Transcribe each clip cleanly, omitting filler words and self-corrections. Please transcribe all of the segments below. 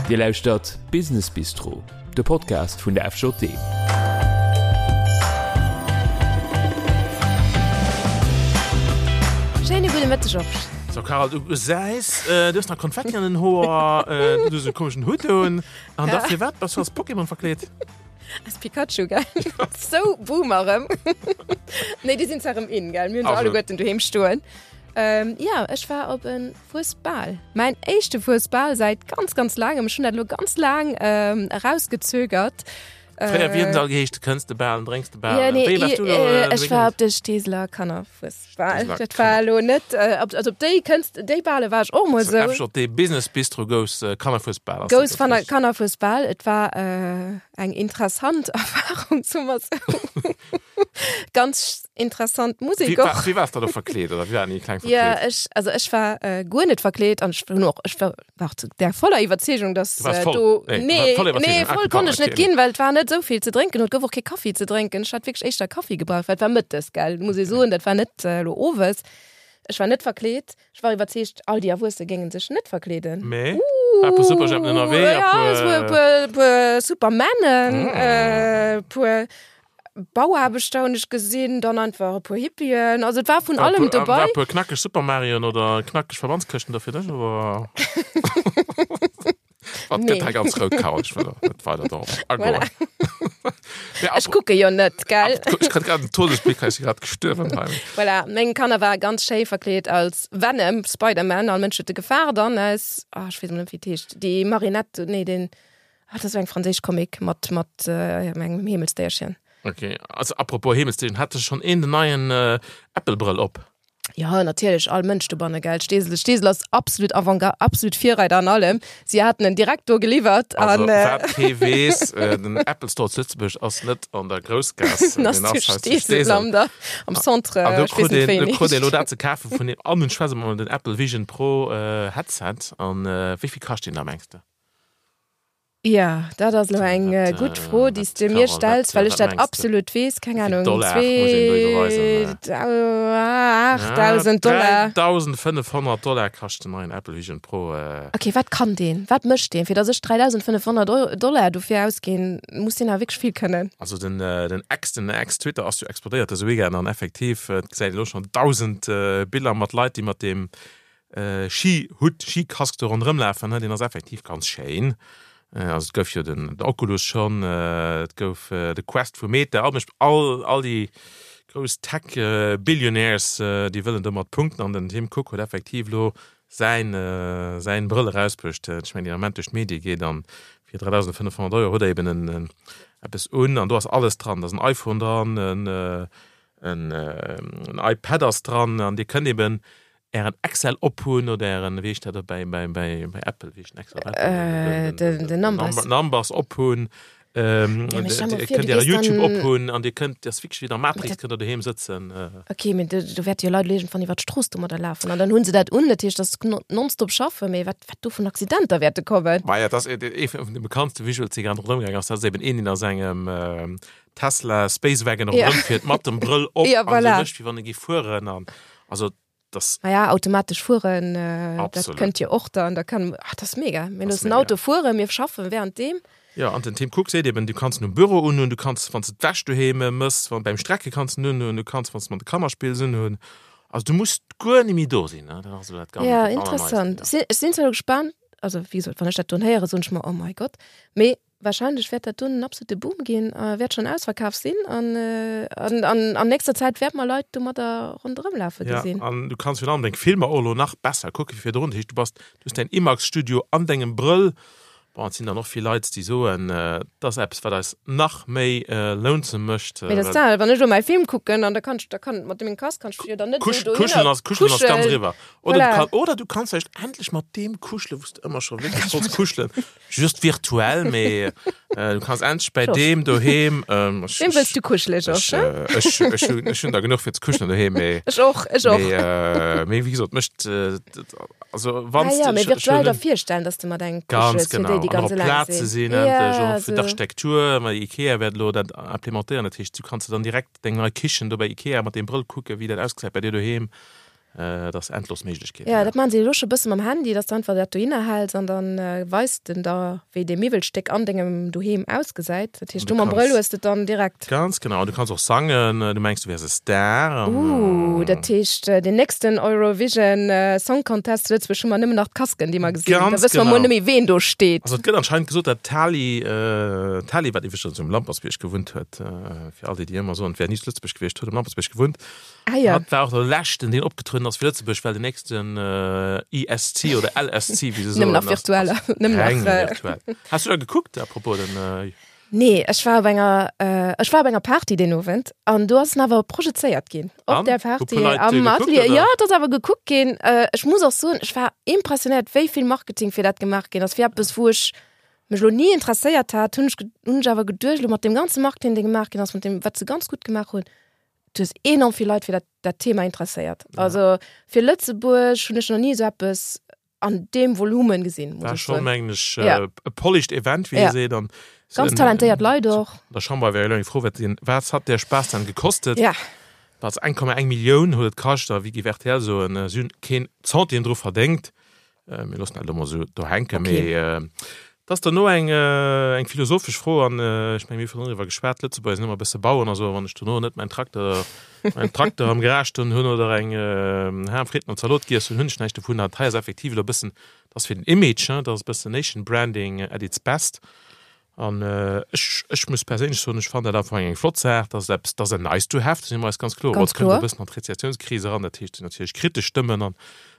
Dir lauschtert Business Bistro, de Podcast vun der FJD. Schéine gudde Mëtteg, Georges. So Carole, du gesäis, du hues nach Konfetti an den Hoer, du hues e komeschen Hutt un. An da firwat bass du als Pokémon verkleet? Als Pikachu, gell? Sou Boomer erëm. Nee, déi sinn zwar erëm in, gell? Mir hunn se alleguerten doheem stoen. Jo, ech war op e Fuesbal. Mäin éischte Fuesbal säit ganz, ganz laangem. Ech hunn dat elo ganz laang erausgezögert. Fréier, wéi huet en all geheescht? Kënns de bal, drénks de bal. Ja, nee, Wéi warst du elo, äh, ech war op de Steeseler Kannerfuesbal. Steeseler Dat war elo net, äh, op, also op déi kënns, déi Bale war ech och mol sou. FJD Business Bistro gous äh, Kannerfuesbal. ass Gous dat richtig? Kannerfuesbal. Et war äh, eng interessant Erfahrung, soe mer sou. Ganz interessant Musek Wie, och. war, wie warst du da verkleet oder wie waren déi kleng verkleet? Ja, ech, also ech war äh, guer net verkleet an ech hunn och, ech war war zu der voller Iwwerzeegung, dass Du warst äh, voll. do Nee, nee, voll nee, Iwwerzeegung. voll Ah, konnt ech net okay. ginn, well et war net esou vill ze drénken und gouf och kee Kaffi ze drénken. Ech hat wierklech éischter Kaffi gebraucht, well et war mëttes, gell, muss ee soen, dat war net äh, elo owes. Ech war net verkleet. Ech war iwwerzeegt, all déi Erwuesse géinge sech net verkleeden. Mee war e puer Superjhempen ënnerwee, Uh, ja, es war e puer, puer Supermännen, äh, puer Bauaarbechter hunn ech gesinn, dann einfach e puer Hippien, also et war vun allem dobei. War e puer knackeg Super Marioen oder knackeg Verbandskëschten do fir dech oder? Wat gëtt hei ganz rout, Carole, ech wëll net weider dorop agoen. Voilà. Ech kucke jo net, gell? Ech kritt grad en Todesblick, hei si grad gestuerwen hei. Voilà, meng Kanner ware ganz schéi verkleet als Venom, Spider-Man, all Mënsch huet e gefaart an aus, ah ech weess emol net wéi et heescht, déi Marinette, nee den, Ah, dat ass eng franséisch Comic mat, mat äh, engem Heemelsdéierchen. Okay, also apropos Heemelsdéierchen, hat sech schon een den neien äh, Apple-Brëll op? Ja, natierlech, all Mënsch dobanne, gell. Steesel, Steesel ass absolut Avantgarde, absolut Virreider an allem. Si haten en direkt do geliwwert. Also, an, äh, wat kee weess, äh, den Apple Store zu Lëtzebuerg ass net an der Groussgaass, den ass den zu ass hei zu Steesel Steesel. am, der, am Centre, An do ech krut weess net een, wéi do en krut een heescht. elo dat ze kafen vun deem, an en schwätze mer den Apple Vision Pro äh, Headset. An äh, wéi vill kascht deen da, mengs de? Ja, dat ass elo eng gutt Fro, déi s de mir stells, well ech dat absolut weess. Keng Ahnung, 8.000 Dollar. 3.500 Dollar kascht den neien Apple Vision Pro. Okay, wat kann deen? Wat mécht deen? Fir datt ech 3.500 Dollar dofir ausginn, muss deen awer wierklech vill kënnen. Also den Ex, den Ex-Twitter ass jo explodéiert dëse Weekend an effektiv, et gesäit een elo schonn 1.000 Biller mat Leit, déi mat deem Ski-Hutt, Ski-Casque do ronderëm lafen, deen ass effektiv ganz schéin. Also et gouf jo den Oculus schonn, et gouf de Quest vu Meta, all mech all all déi grouss Tech-Billionaires, déi wëllen domat punkten an den Tim Cook huet effektiv elo säin säin Brëll erausbruecht, ech mengen deen Ament duerch d'Medie geet an fir 3.500 Euro huet der eben en eppes un an do ass alles dran, da ass en iPhone dran, en en iPad ass dran an Dir kënnt eben Ären Excel ophunn oder ären, wéi heescht dat op bäi, bäi, bäi, bäi Apple, wéi heescht den Excel op Apple? Äh, den, den Numbers. Numbers ophunn. Ähm, Ja, mee stell Dir mol vir, kënnt du äre gees YouTube dann- ophunn an Dir kënnt, dat ass wierklech wéi der Matrix, Dat- kënnt der doheem sëtzen. Okay, mee do, do wäerte jo Leit elo iergendwann iwwer d'Strooss domadder lafen an dann hunn se dat un, dat heescht, dass se nonstop schaffen, mee wat, wat do vun Accidenter wäerte kommen. Maja, dat ass ee vun de bekanntste Visuals, déi grad ronderëm gaangen ass. Dat ass eben een, deen a sengem Tesla Space Wagon Ja. ronderëm fiert mat dem Brëll op Ja, an esou voilà. mécht, wéi wann e géif fueren an also das Naja, automatesch fueren, äh, dat Absolut. kënnt jo och dann, da kann, ach, das ass mega. Mir Das loossen mega. Auto fueren, mir schaffen währenddeem. Ja, an den Tim Cook seet eben, du kanns en um Büro unhunn, du kanns, wann s de d'Wäsch doheem mëss, wann beim Strecke kanns en unhunn, du kanns, wann s de mat de Kanner spills, unhunn. Also du muss guer ni méi do sinn, ne? Dat ass elo dat ganz Ja, dat interessant. Allerneiste, ja. Si, ech sinn zwar elo gespaant, also wéi gesot, wann ech dat don héieren, soen ech mer, oh mein Gott, mee Wahrscheinlech wäert dat dunn en absolute Boom ginn a wäert schonn ausverkaf sinn an an an nächster Zäit wäerte mer Leit domadder ronderëm lafe gesinn. Ja, an du kanns virun allem deng Filmer och elo nach besser kucke wéi virdrun. Dat heescht, du bass, du hues däin IMAX-Studio an dengem Brëll. Bon, et sinn dann och vill Leit, déi soen, dat ass eppes, wat eis nach méi lonesome mécht. Mee dat ass dat, wann ech elo mäi Film kucken an da kann ech, da kann mat mengem Casque kann ech jo dann net esou dohinner Kuschelen ass, kuschelen ass ganz kuschelen. eriwwer. Oder du Voilà. kann, oder du kanns vläicht endlech mat deem kuschelen, wou s de ëmmer scho wierklech wollts kuschelen. Just virtuell, mee äh, du kanns endlech bei Georges. deem doheem. Ähm, ech, Wem wëlls du kuschelen, ech, Georges? hä? äh, ech, ech, hunn, ech hunn der genuch fir ze kuschelen doheem, mee, Ech och, ech och. mee, äh, mee wéi gesot, mécht, äh, dat- also wann Ah ja, s mee de, ech, ech virtuell hunn der virstellen, dass du mat engem ganz kuschels, fir genau, déi, déi an ganz och op eleng Plaze sinn. sinn Ja, endlech, och fir esou. d'Architektur, well Ikea wäert elo dat implementéieren, dat heescht, du kanns de dann direkt deng nei Kichen do bei Ikea mat deem Brëll kucken, wéi dat ausgesäit bei dir doheem. Et ass endlos Méiglechkeeten. Jo, dat maachen se elo scho bësse mam Handy, dass de einfach dat dohinner häls an dann weist en der, wéi dee Miwwelstéck an dengem Doheem ausgesäit. Dat heescht, du mam Brëll hues de et dann direkt. Ganz genau. An du kanns och sangen, du mengs, du wäers e Star. An, uh, dat heescht, deen nächsten Eurovision Song Contest zu Lëtzebuerg hu mer nëmmen nach d'Kasken, déi mer gesinn. Ganz Da wësse mer genau. mol net méi, ween do steet. Also et gëtt anscheinend gesot, dat d'Tali, d'Tali, wat iwwregens um Lampertsbierg gewunnt huet, fir all déi, déi ëmmer soen, et wär ni zu Lëtzebuerg gewiescht, huet um Lampertsbierg gewunnt, Ah ja. Hatt war och de leschten, deen opgetrueden ass fir Lëtzebuerg, well den nächsten ESC oder LSC, wéi se soen, Nëmmen nach virtuell. Nëmmen nach, reng virtuell. Has du da gekuckt, à propos den. Nee, ech war op enger, ech war op enger Party deen Owend an do ass en awer projezéiert ginn. Op An? där Hu puer Party Leit am gekuckt, Atelier. oder? Jo, et ass awer gekuckt ginn. Ech muss och soen, ech war impressionéiert, wéi vill Marketing fir dat gemaach ginn ass, fir eppes, wou ech mech elo ni interesséiert hat, hunn ech, hunn ech awer geduecht, elo mat deem ganze Marketing, dee gemaach ginn ass, mat deem, wat se ganz gutt gemaach hunn, du hues enorm vill Leit fir dat, dat Thema interesséiert. Ja. Also fir Lëtzebuerg hunn ech noch nie so eppes an deem Volumen gesinn. War schon mengen ech ja. äh, e polished Event wie ja. seet an ganz talentéiert Leit och. Der Chamber wär elo froh wat den wat hat der Spaß dann gekostet? Ja. Was 1,1 Millioun huet et kascht a wéi géif RTL soen, äh, si hunn keen Centime dru verdéngt. Mir loossen dat elo mol esou do hänken. Okay. Mee et ass dono eng, eng philosophesch Fro an ech menge mir hu virdrun driwwer geschwat, d'Lëtzebuerger sinn ëmmer e bësse Baueren a sou, wann ech dono net mäin Trakter, mäin Trakter am Garage stoen hunn oder eng Ham, Fritten an Zalot giess hunn, hunn ech näischt dovun. Dat hei ass effektiv elo e bëssen, dat ass fir den Image, dat ass e bëssen Nation Branding at its best. An ech, ech muss perséinlech soen, ech fannen dat am Fong eng flott Saach, dat ass eppes, dat ass en nice to have, do si mer eis ganz kloer. Ganz Et kënnt kloer. e bëssen an d'Rezessiounskris eran, dat heescht, et sinn natierlech kritesch Stëmmen an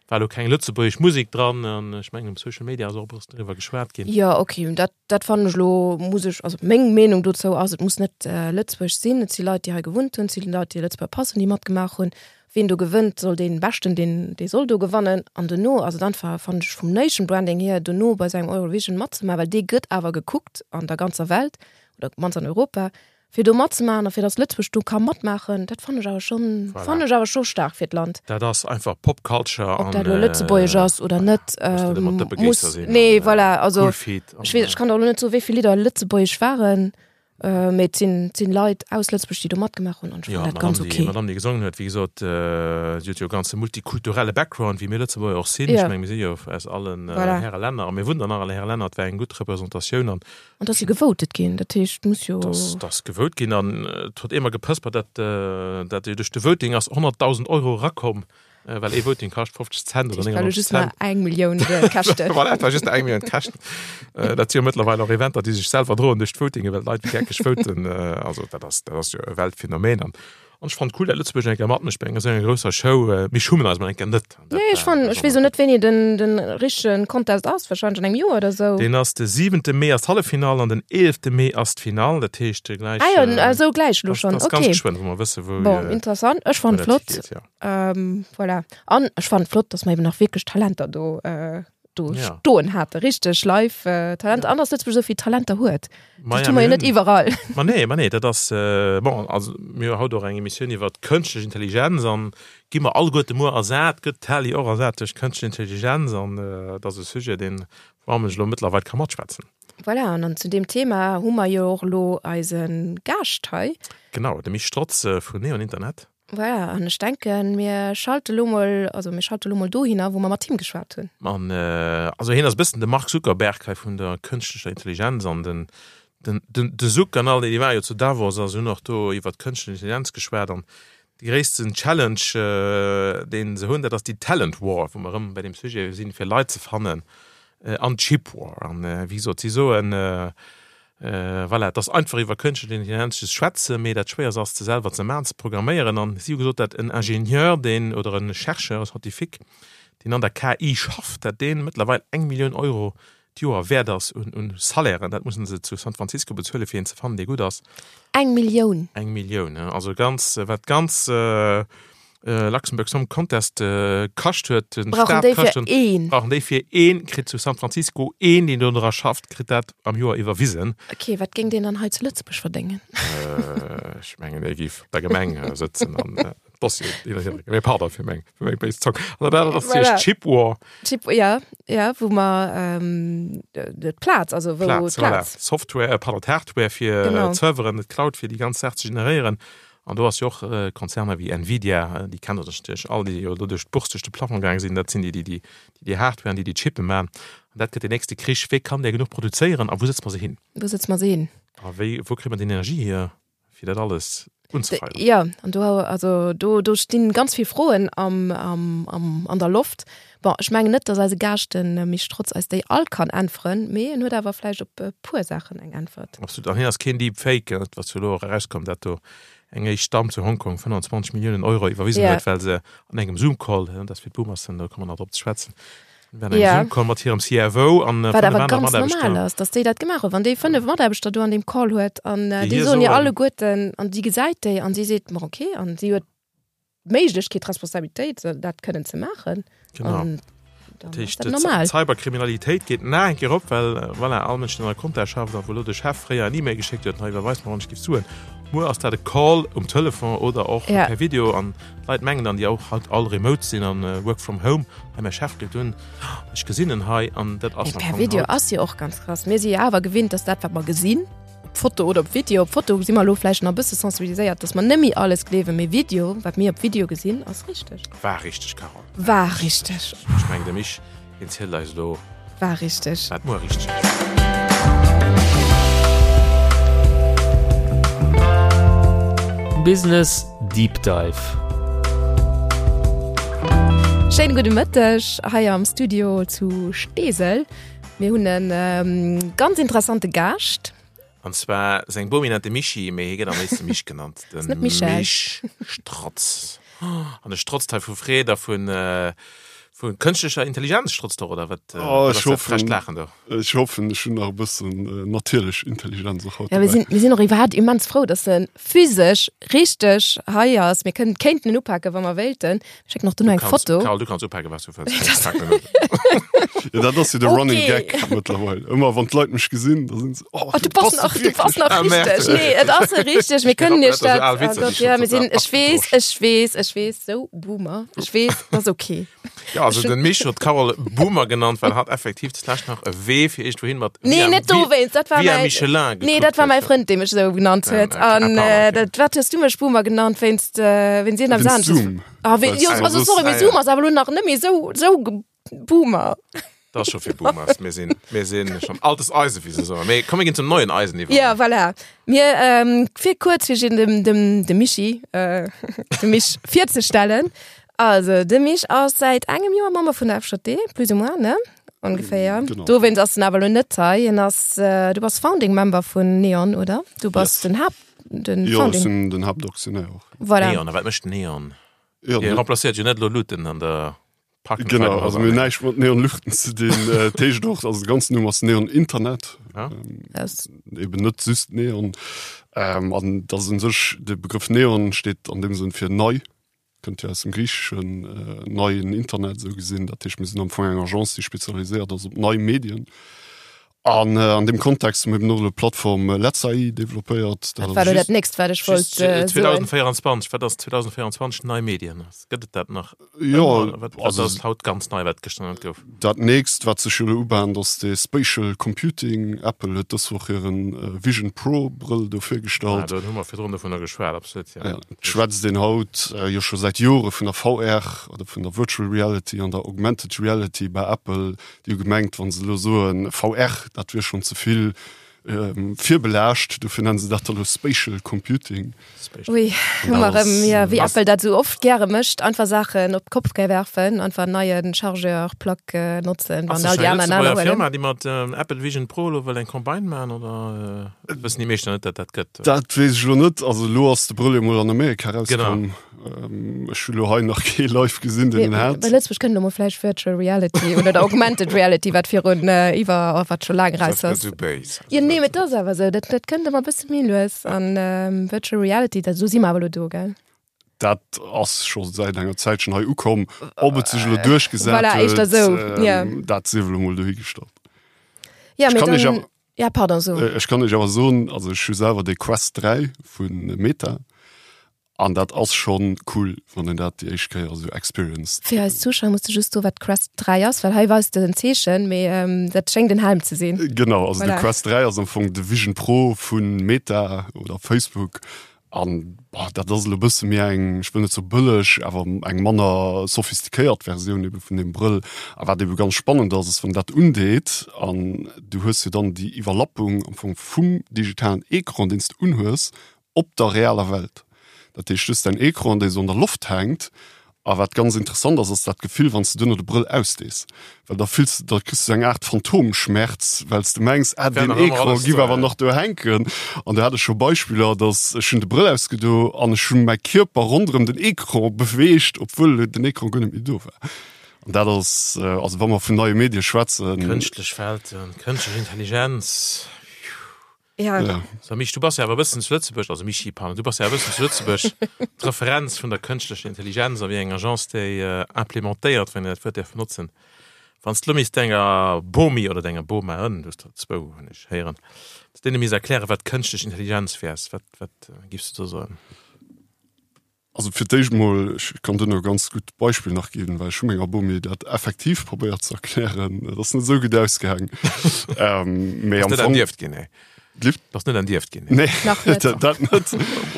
war elo keng lëtzebuergesch Musek dran an ech mengen um Social Media ass och e bëssen driwwer geschwat ginn. Jo, okay, dat, dat fannen ech elo, muss ech, also meng Meenung dozou ass, et muss net Lëtzebuerg sinn, et si Leit, déi hei gewunnt hunn, et si Leit, déi Lëtzebuerger Pass hunn, déi matgemaach hunn. Ween do gewënnt, soll dee Beschten, deen, dee soll do gewannen. An dono ass et einfach, fannen ech, vum Nation Branding hier, dono bei sou engem Eurovision matzemaachen, well dee gëtt awer gekuckt an der ganzer Welt oder op d'mannst an Europa, fir do matzemaachen a fir datt Lëtzebuerg do ka matmaachen, dat fannen ech awer schonn, Voilà. fannen ech awer scho staark fir d'Land. Dat ass einfach Pop Culture Ob an, dat elo lëtzebuergesch ass oder net, muss net ëmmer ähm, muss, Dëppegéisser sinn nee, an, voilà, also cool Feet an, ech weess, ech kann der elo net soen, wéi vill Lidder lëtzebuergesch waren. Mee et sinn, et sinn Leit aus Lëtzebuerg, déi do matgemaach hunn an ech Jo, fannen dat ganz d'Madame, déi, ok. d'Madame, déi gesongen huet, wéi gesot, si huet jo e ganze multikulturelle Background, wéi mir Lëtzebuerger och sinn. Ja. Ech menge mir si jo aus allen Voilà. Häre Länner a mir wunnen an alle Häre Länner. Et war eng gutt Representatioun an An et ass jo gevotet ginn, dat heescht, et muss jo. Et ass gevote ginn an et huet eemol gepëspert, dat, dat jo duerch de Voting ass 100.000 Euro erakomm. Äh, well ee Voting kascht 50 Cent oder 99 just Cent. eng Millioun käschten. Voilà, et war just eng Millioun käschten. Äh, dat si jo mëttlerweil och Eventer, déi sech selwer droen duerch d'Votinge, well d'Leit wéi geckeg voten. Äh, also dat ass, dat ass jo e Weltphänomen. An, an ech fand cool, dat Lëtzebuerg eng Kéier matmécht bei enger esou enger grousser Show. Äh, mir schummen eis mol eng Kéier net. Dat Nee, ech war- fand, dat ech war weess och net, wéini den, den richtegen Contest ass, wahrscheinlech an engem Joer oder sou. Deen ass de 7. Mee ass d'Halleffinall an den 11. Mee ass d'Finall. Dat heescht gläich. Ah jo, äh, esou gläich elo das, schonn, das ganz okay. geschwënn, wou mer wësse wou, Bon, äh, interessant, ech wou fand dat flott. higeet, ja. Ähm, voilà. An ech fand flott, dass mer eben nach wierklech Talenter do, äh, do Ja. stoen hate. Richteg live äh, Talent. Ja. An dass Lëtzebuerg esou vill Talenter huet. Ma Dat ja, hu mer jo mir net hunn- iwwerall. Ma nee, ma nee, dat ass äh, bon, also mir hu haut och eng Emissioun iwwer kënschtlech Intelligenz an gi mer alleguerte muer ersat, gëtt d'Tali och ersat duerch kënschtlech Intelligenz an äh, dat ass e Sujet, deen wou ech elo mëttlerweil ka matschwätzen. Voilà, an an zu deem Thema hu mer jo och elo eise Gaascht hei. Genau, de Misch Strotz äh, vun Neon Internet. Voilà, an ech denken, mir schalte lo mol, also mir schalte lo mol dohinner, wou mer mat him geschwat hunn. An also hien ass e bëssen de Mark Zuckerberg hei vun der kënschtlecher Intelligenz an den, den, den, de Zuck an all déi, déi ware jo zu Davos a se hunn och do iwwert kënschtlech Intelligenz geschwat an de gréissten Challenge, dee se hunn, dat ass déi Talent War, wou mer erëm bei deem Sujet sinn, fir Leit ze fannen an d'Chip War. An wéi gesot, si soen, Voilà, et ass einfach iwwer kënschtlech Intelligenz ze schwätzen, mee dat Schwéierst ass, se selwer ze maachen, ze programméieren. An si hu gesot, dat en Ingenieur, deen, oder e Chercheur, e Scientifique, deen an der KI schafft, dat dee mëttlerweil eng Millioun Euro d'Joer wäert ass un, un Salairen. Dat mussen se zu San Francisco bezuelen, fir een ze fannen, dee gutt ass. Eng Millioun? Eng Millioun, ja. Also ganz, wat d'ganz Luxembourg Song Contest kascht huet, den Brauchen Staat déi kascht fir huet, een? brauchen déi fir een, kritt zu San Francisco een, deen do dra schafft, kritt dat am Joer iwwerwisen. Ok, wat géing deen dann hei zu Lëtzebuerg verdéngen? Ech mengen, dee géif op der Gemeng sëtzen an Dossieren hin an hier drécken. Mee pardon fir meng, fir meng béis Zong. An dat anert ass Voilà. natierlech d'Chip War. Chip, ja, ja, wou mer d'Plaz, also wou Plaz, voilà. d'Plaz. Software, pardon, d'Hardware fir Genau. d'Serveren, d'Cloud fir déi ganz Saach ze generéieren. An do ass jo och Konzerner wéi Nvidia, déi kennt Der natierlech all, déi jo elo duerch d'Bourse duerch de Plafond gaange sinn, dat sinn déi, déi déi déi Hardware an déi déi Chippe maachen. An dat gëtt deen nächste Krich, Wéi kann där genuch produzéieren a wou sëtze mer se hin? Wou sëtze mer se hin? A wéi, wou kréie mer déi Energie hier, fir dat alles unzefeieren? Jo, an do, also do, do stinn ganz vill Froen am, am, am, an der Loft. Bon, ech mengen net, datt eise Gaascht, de Misch Strotz, eis déi all kann äntweren, mee en huet awer vläicht op e puer Saachen eng Äntwert. Absolut. An hien ass keen Deep Fake, dat wat jo elo och erauskomm, dat do eng éischt Damm zu Hongkong 25 Milliounen Euro iwwerwisen huet, well se an engem Zoom-Call, dat ass fir d'Boomersen, do komme mer nach drop ze schwätzen, an engem Zoom-Call mat hirem CFO an Wat awer ganz normal ass, datt déi dat gemaach huet. Wann déi 5 Mataarbechter do an deem Call huet an déi soen hir alleguerten an si gesäit déi an si seet, ma okay, an si huet d'Méiglechkeet, d'Responsabilitéit, dat kënnen ze maachen. Genau. An dann ass dat normal. D'Cyberkriminalitéit geet nach eng Kéier op, well voilà, all Mënsch, deen an der Compta schafft a wou elo de Chef fréier en E-Mail geschéckt huet, hei iwwerweis mer wann ech giff Suen. Muer ass dat e Call um Telefon oder och ja. per Video an d'Leit mengen dann, déi och haut all remote sinn an äh, work from home, hei mäi Chef gëtt un, ech gesinn en hei an dat ass per Video ass jo och ganz krass. Mir si jo awer gewinnt, dass dat wat mer gesinn, Op Foto oder op Video. Op Foto si mer elo vläicht nach e bësse sensibiliséiert, dass mer net méi alles gleewen, mee Video, wat mir op Video gesinn, ass richteg. War richteg, Carole. War richteg. Ech mengen, de Mich, deen zielt eis elo. War richteg. Wat muer richteg ass. Business Deep Dive. Schéine gudde Mëtteg hei am Studio zu Steesel. Mir hunn e ganz interessante Gaascht. An zwar seng Bomi nennt de Michi, mee hie gëtt am léifste Mich genannt. Den net Michel. Mich Strotz. An e strotzt hei vu Freed a vun, vu kënschtlecher Intelligenz strotzt och, oder wat? Oh, ech wat ass dat frecht hoffen, Laachen do? ech hoffen, ech hunn nach e bëssen natierlech Intelligenz och haut Ja, mir dobäi. sinn, mir sinn och iwwerhaapt immens frou, dass e physesch richteg hei ass. Mir kënnen, kéinten en upaken, wa mer wéilten. Schéck nach duerno eng Foto. Carole, du kanns upaken, wat du wëlls. Ja, dat ass jo de Running Okay. Gag mëttlerweil. Ëmmer wann d'Leit mech gesinn, da sinn se, oh, Oh, du bass nach, du bass nach Ah, richteg. merde. Nee, et ass richteg. Mir kënnen iech Dat ass dat. so al Oh Witzer, déi Gott, schon ja, mir sinn, total ech weess, abgedroschen. ech weess, ech weess, sou Boomer. Ech weess, ass okay. Ja, also den Mich huet d'Carole Boomer genannt, well hatt effektiv zulescht nach e Wee fir iergendwouhin mat Nee, via, net dowéinst, dat war via mäi, Michelin nee, gekuckt dat war mäi huet. Frënd, dee mech esou genannt Ja, huet. okay, An ah, pardon, äh, okay. dat, wat hues du mech Boomer genannt, wéinst, äh, wéinst iergendem Wéinst anesches? Zoom. Ah, wéi, Weil's jo, du also soss- sorry, mee Ah, Zoom ja. ass awer elo nach net méi esou, esou ge- Boomer. Dat ass scho fir Boomers. Mir sinn, mir sinn schon altes Eisen, wéi se soen. Mee komm, mir ginn zum neuen Eisen iwwer. Ja, voilà. Mir, ähm, fir kuerz fir dem, dem, dem Michi, äh, dem Mich virzestellen. Also, de Mich ass säit engem Joer Member vun der FJD, plus ou moins, ne? Ongeféier. Genau. Dowéinst ass en awer elo net hei. En ass, äh, du bass Founding Member vun Neon, oder? Du bass Yes. den Haupt, den Jo, ech Founding. sinn den Haaptaktionär och. Voilà. Neon, a wat mécht Neon? Jo, Dir remplacéiert jo net elo Luuten an der Park and Genau, Ride also mir hunn näischt mat Neon Luuchten ze dinn. Äh, dat heescht och, also de ganzen Numm ass Neon Internet. Ja. Ähm, Das, eben net just Neon. Ähm, an dat ass un sech, de Begrëff Neon steet an deem Sënn fir nei. Kënnt jo aus dem Griicheschen, neien Internet esou gesinn. Dat heescht, mir sinn am Fong eng Agence, déi spezialiséiert ass op nei Medien. An an deem Kontext hu mir eben och elo d'Plattform LetzAI developpéiert. Dat war elo dat nächst, wat ech wollt soen. 2024, wat ass 2024 nei Medien? Gëtt et dat nach? Jo, Wat wat ass haut ganz nei, wat gëschter net gouf? Dat nächst, wat sech jo elo ubahnt, ass de Spatial Computing. Apple huet dës Woch hiren Vision Pro Brëll do virgestallt. Ah, do hu mer virdrun dovunner geschwat, absolut, jo. Ja, et schwätzt een haut jo scho säit Jore vun der VR oder vun der Virtual Reality an der Augmented Reality bei Apple. Déi hu gemengt, wa se elo soen VR, dat wier schonn ze vill virbelaascht. Dofir nennen se dat da elo Spatial Computing. Ui, hu mer erëm, ja, wéi Apple dat esou oft gäre mécht, einfach Saachen op d'Kopp werfen, einfach en neie Chargeur, Plug notzen, Ass wann all dat déi eng aner en aner Lëtzebuerger huelen. Firma, déi mat Apple Vision Pro elo wëll eng Campagne maachen, oder wëssen déi meeschten net, datt dat gëtt? Dat weess ech elo net. Also elo ass de Brëll jo mol an Amerika Genau. erauskomm. Ech hu lo hei nach kee live gesinn, deen en hat. Bei Lëtzebuerg kënnt elo mol vläicht Virtual Reality oder der Augmented Reality, wat virun iwwer, oh, wat scho laang Dat raus gëtt ass. esou béis. Jo, nee, mee et ass awer esou, dat, dat kënnt ëmmer e bësse méi lues. An Virtual Reality, dat, do si mer awer elo do, gell? Dat ass scho säit enger Zäitchen hei ukomm. Ob et sech elo duerchgesat Voilà, éischter huet, esou, ja. dat sief elo mol dohigestallt. Ja, Ech mee kann iech dann, awer, ja, pardon, so. ech kann iech awer soen, also ech hu selwer de Quest 3 vu Meta. An dat ass schon cool, wann een dat déi éischt Kéier esou experienced. Fir eis Zuschauer muss de just soen, wat d'Quest 3 ass, well hei weist de en Zeechen, mee dat schéngt en Helm ze sinn. Genau, also de Voilà. Quest 3 ass am Fong de Vision Pro vu Meta oder Facebook. An boah, dat ass elo e bësse méi eng, ech wëll net soe bëlleg, awer eng manner sophistiquéiert Versioun ebe vun deem Brëll. A wat ebe ganz spannend ass, ass wann dat undeet an du hues jo dann déi Iwwerlappung am Fong vum digitalen Ecran, deen s de unhues, op der realer Welt. Dat heescht, du hues däin Ecran, dee sou an der Loft hänkt A wat ganz interessant ass, ass dat Gefill, wann s de duerno de Brëll ausdees, well da fills de, da kriss du sou eng Aart Phantomschmerz, well s de mengs, ah, deen Ecran giff awer nach do hänken. An do hat ech scho Beispiller, dass ech hunn de Brëll ausgedo an ech hu mäi Kierper ronderëm den Ecran beweegt, obwuel den Ecran guer net méi do war. An dat ass, also wa mer vun neie Medie schwätzen. Kënschtlech Welten, kënschtlech Intelligenz. Ja. Ja. So, Mich, du bass ja awer e bëssen zu Lëtzebuerg, also Michi, pardon, du bass ja e bëssen zu Lëtzebuerg d'Referenz vun der kënschtlecher Intelligenz a wéi eng Agence déi äh, implementéiert, wann een dat Wuert däerf benotzen. Wann s de lo misst denger Bomi oder denger Boma, du hues der zwou, hunn ech héieren, s deene misst erklären, wat kënschtlech Intelligenz wäers, wat, wat giffs du do soen? Also fir d'éischt mol, ech kann duerno e ganz gutt Beispill nach ginn, well ech hu menger Bomi dat effektiv probéiert ze erklären. Et ass net esou gutt ausgaang. Mee am Fong. Ass net ginn, nee. Lift? Ass net entierft ginn. Nee, nach net. Dat net.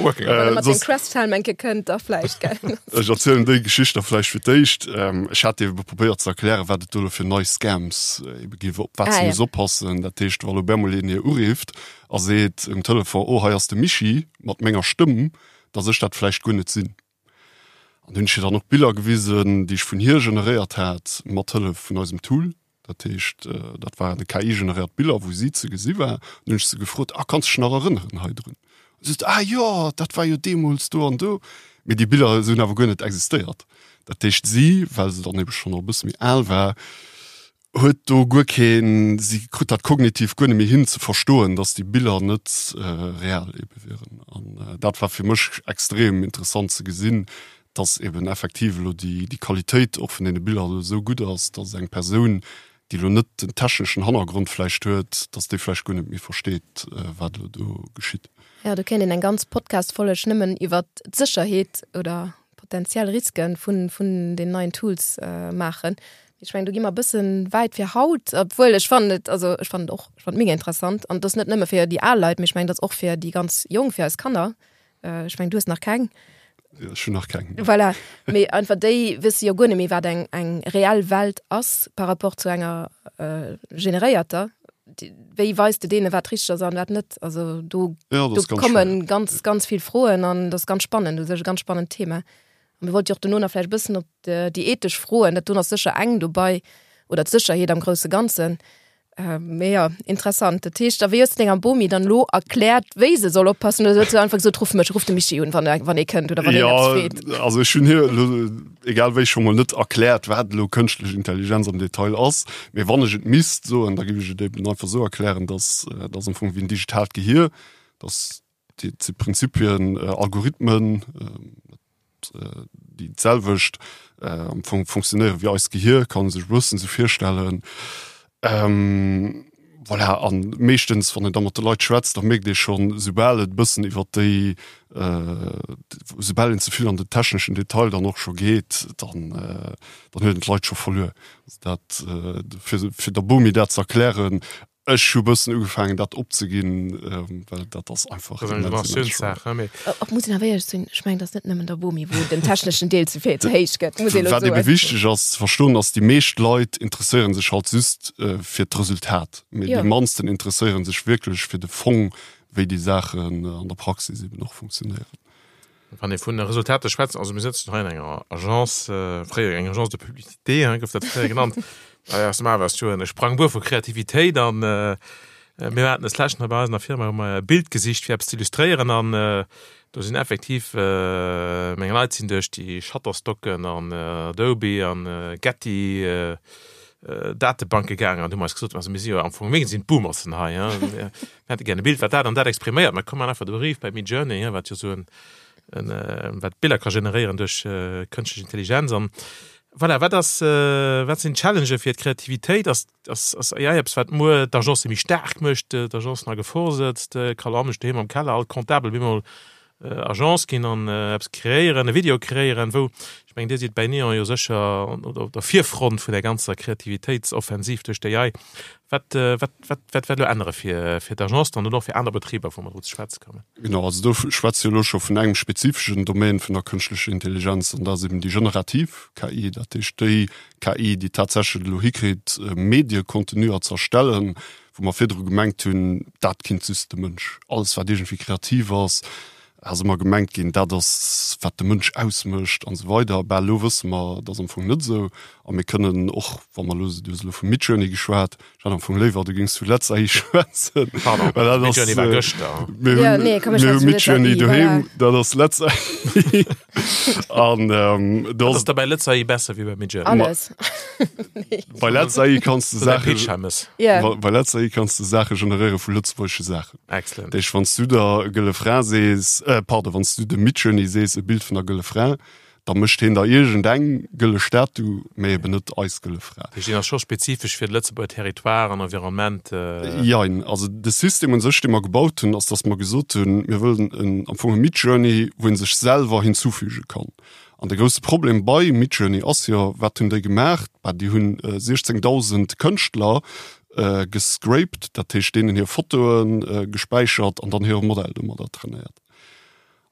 Wann e mat dem Crest-Helm eng Kéier kënnt, da vläicht, gell. Ech erzielen déi Geschicht da vläicht fir d'éischt. Ech hat ebe probéiert ze erklären, wat et do elo fir nei Scams ebe géif, op wat se muss oppassen. Dat heescht, wa lo bemol een hir urifft a seet um Telefon, Oh, hei ass de Michi mat menger Stëmm, dass ech dat vläicht guer net sinn. An hunn ech hir dann och Biller gewisen, déi ech vun hir generéiert hat, mat Hëllef vun eisem Tool. Dat heescht, dat waren KI-generéiert Biller, wou si ze gesi war. An hunn ech se gefrot, Ah, kanns dech nach erënneren hei drun? An si sot, Ah jo, dat war jo deemools do an do. Mee déi Biller hunn awer guer net existéiert. Dat heescht, si, well se dann ebe schonn och e bësse méi al war, huet do guer keen, si krut dat kognitiv guer net méi hin ze verstoen, dass déi Biller net real ebe wieren. An dat war fir mech extrem interessant ze gesinn, dass eben effektiv elo déi déi Qualitéit och vun deene Biller elo esou gutt ass, dass eng Persoun, déi elo net den techneschen Hannergrond vläicht huet, dass déi vläicht guer net méi versteet, wat elo do geschitt. Jo, do kéint een eng ganz Podcast-Folleg nëmmen iwwert d'Sécherheet oder potenziell Risken vun, vun den neien Tools äh, maachen. Ech mengen, do gi mer e bëssen wäit fir haut, obwuel ech fannen et, also ech fannen et och, ech fannen et mega interessant. An et ass net nëmme fir déi al Leit, mee ech mengen, et ass och fir déi ganz Jonk, fir eis Kanner. Äh, ech mengen, du hues nach keng. Ja, ech hunn nach keng. Voilà. Mee einfach déi wësse jo guer net méi, wat eng, eng reell Welt ass par rapport zu enger äh, generéierter. Wéi weis de deene wat richteg ass an wat net? Also do, ja, do kommen ganz ganz vill Froen an das ganz spannend, das ist e ganz spannend Thema. An mir wollt jo och dono nach vläicht e bëssen op déi ethesch Froen, dat do ass sécher eng dobei oder d'Sécherheet am grousse Ganzen. Mee jo, interessant. Dat heescht, a wéi hues de denger Bomi dann elo erkläert, wéi se soll oppassen oder huet se einfach gesot, ruff mech, ruff de Michi un, wann wann ee kënnt oder wann een eppes freet? Ja, also ech hunn hir elo egal wéi scho mol net erkläert, wat elo kënschtlech Intelligenz am Detail ass. Mee wann ech et misst soen, da géif ech et eben einfach esou erklären, dass dat ass am Fong wéi en digitaalt Gehier, dass déi si Prinzipien, Algorithmen, déi d'selwecht am Fong funktionéiere wéi eist Gehier, kann ee sech e bëssen esou virstellen. Voilà, an meeschtens, wann een da mat de Leit schwätzt, da mierkt ee schonn, soubal et e bëssen iwwer déi, soubal een ze vill an den techneschen Detail dann och scho geet, dann, dann huet een d'Leit scho verluer. Also dat, fir, fir der Bomi dat ze erklären, Ech hu bëssen ugefaangen dat opzeginn, well dat ass einfach immens, immens schwéier. Och muss een awer éierlech sinn, ech mengen, et ass net nëmmen der Bomi, wou den techneschen Deel ze vill, ze héich gëtt, muss een elo Wat ebe soen. wichteg ass ze verstoen, ass, déi meescht Leit interesséiere sech halt just fir d'Resultat, mee Jo. déi mannsten interesséiere sech wierklech fir de Fong, wéi déi Saachen an der Praxis eben och funktionéieren. Wann ee vun Resultater schwätzt, also mir sëtzen hei an enger Agence, fréier eng Agence de publicité, hein, gouf dat fréier genannt, aus dem Awer ass jo e Sprangbuer vu Kreativitéit an mir haten des leschten hei bei eis an der Firma hu mer e Bild gesicht fir eppes ze illustréieren an do sinn effektiv meng Leit sinn duerch déi Shutterstocken an Adobe an Getty Datebanke gaangen an hu mer eis gesot, also mir si jo am Fong, mir sinn d'Boomersen hei, hein. Mir hätte gär e Bild, wat dat an dat expriméiert. Mä komm, maachen einfach de Brief bei Midjourney, wat jo esou en, en, wat Biller ka generéieren duerch kënschtlech Intelligenz. An voilà, wat ass, wat sinn d'Challengë fir d'Kreativitéit? Ass, ass, ass AI eppes, wat muer d'Agencë méi staark mécht, d'Agencen a Gefor sëtzt? Carlo Amisch doheem am Keller, all Comptabel bemol. Agence ginn an eppes kreéieren, e Video kreéieren, wou, ech mengen, Dir sidd bäi Neon jo sécher op der Virfront vun der ganzer Kreativitéitsoffensiv duerch d'AI. Wat, wat, wat, wat wäert elo ännere fir, fir d'Agence dann oder och fir aner Betriber, wou mer dru ze schwätze kommen? Genau, also do schwätze jo elo scho vun engem spezifeschen Domaine vun der kënschtlecher Intelligenz, an dat ass eben déi generativ KI, dat heescht déi KI, déi tatsächlech et elo hikritt, Mediecontenuer ze erstellen, wou mer virdru gemengt hunn, dat kinnt just de Mënsch. Alles wat iergendwéi kreativ ass, ass ëmmer gemengt ginn, dat ass wat de Mënsch ausmécht an esou weider. Bah, elo wësse mer, dat ass am Fong net esou. A mir kënnen och, wa mer elo, du hues elo vu Midjourney geschwat, ech hätt am Fong léiwer, du géings vu Letz AI schwätzen. Pardon, Well dat ass, Midjourney war gëschter. Mir Ja, hunn, nee, komm, ech mir hu schwätze vu Letz Midjourney AI, doheem, voilà. dat ass Letz AI. An do Wat ass ass da bei Letz AI besser wéi bei Midjourney? Alles. Bei Letz AI kanns du Oder Saache Pitch Hammes. Ja. Bei bei Letz AI kanns du Saache generéiere vu lëtzebuergesche Saachen. Excellent. Dat heescht, wann s du der Gëlle Fra sees, äh, pardon, wann s du dem Midjourney sees, e Bild vun der Gëlle Fra, da mécht heen der iergendeng gëlle Statu, mä eben net eis Gëlle Fra. Dat heescht, deen ass scho spezifesch fir de Lëtzebuerger Territoire an Environnement. Jein. Also de System un sech, dee mer gebaut hunn, ass, datt mer gesot hunn, mir wëllen en, am Fong e Midjourney, wou ee sech selwer hinzufüge kann. An de grousse Problem bei Midjourney ass jo, wat hunn déi gemaach? Bah, déi hunn 16.000 Kënschtler gescraped, dat heescht deenen hir Fotoe gespäichert an dann hire Modell domadder trainéiert.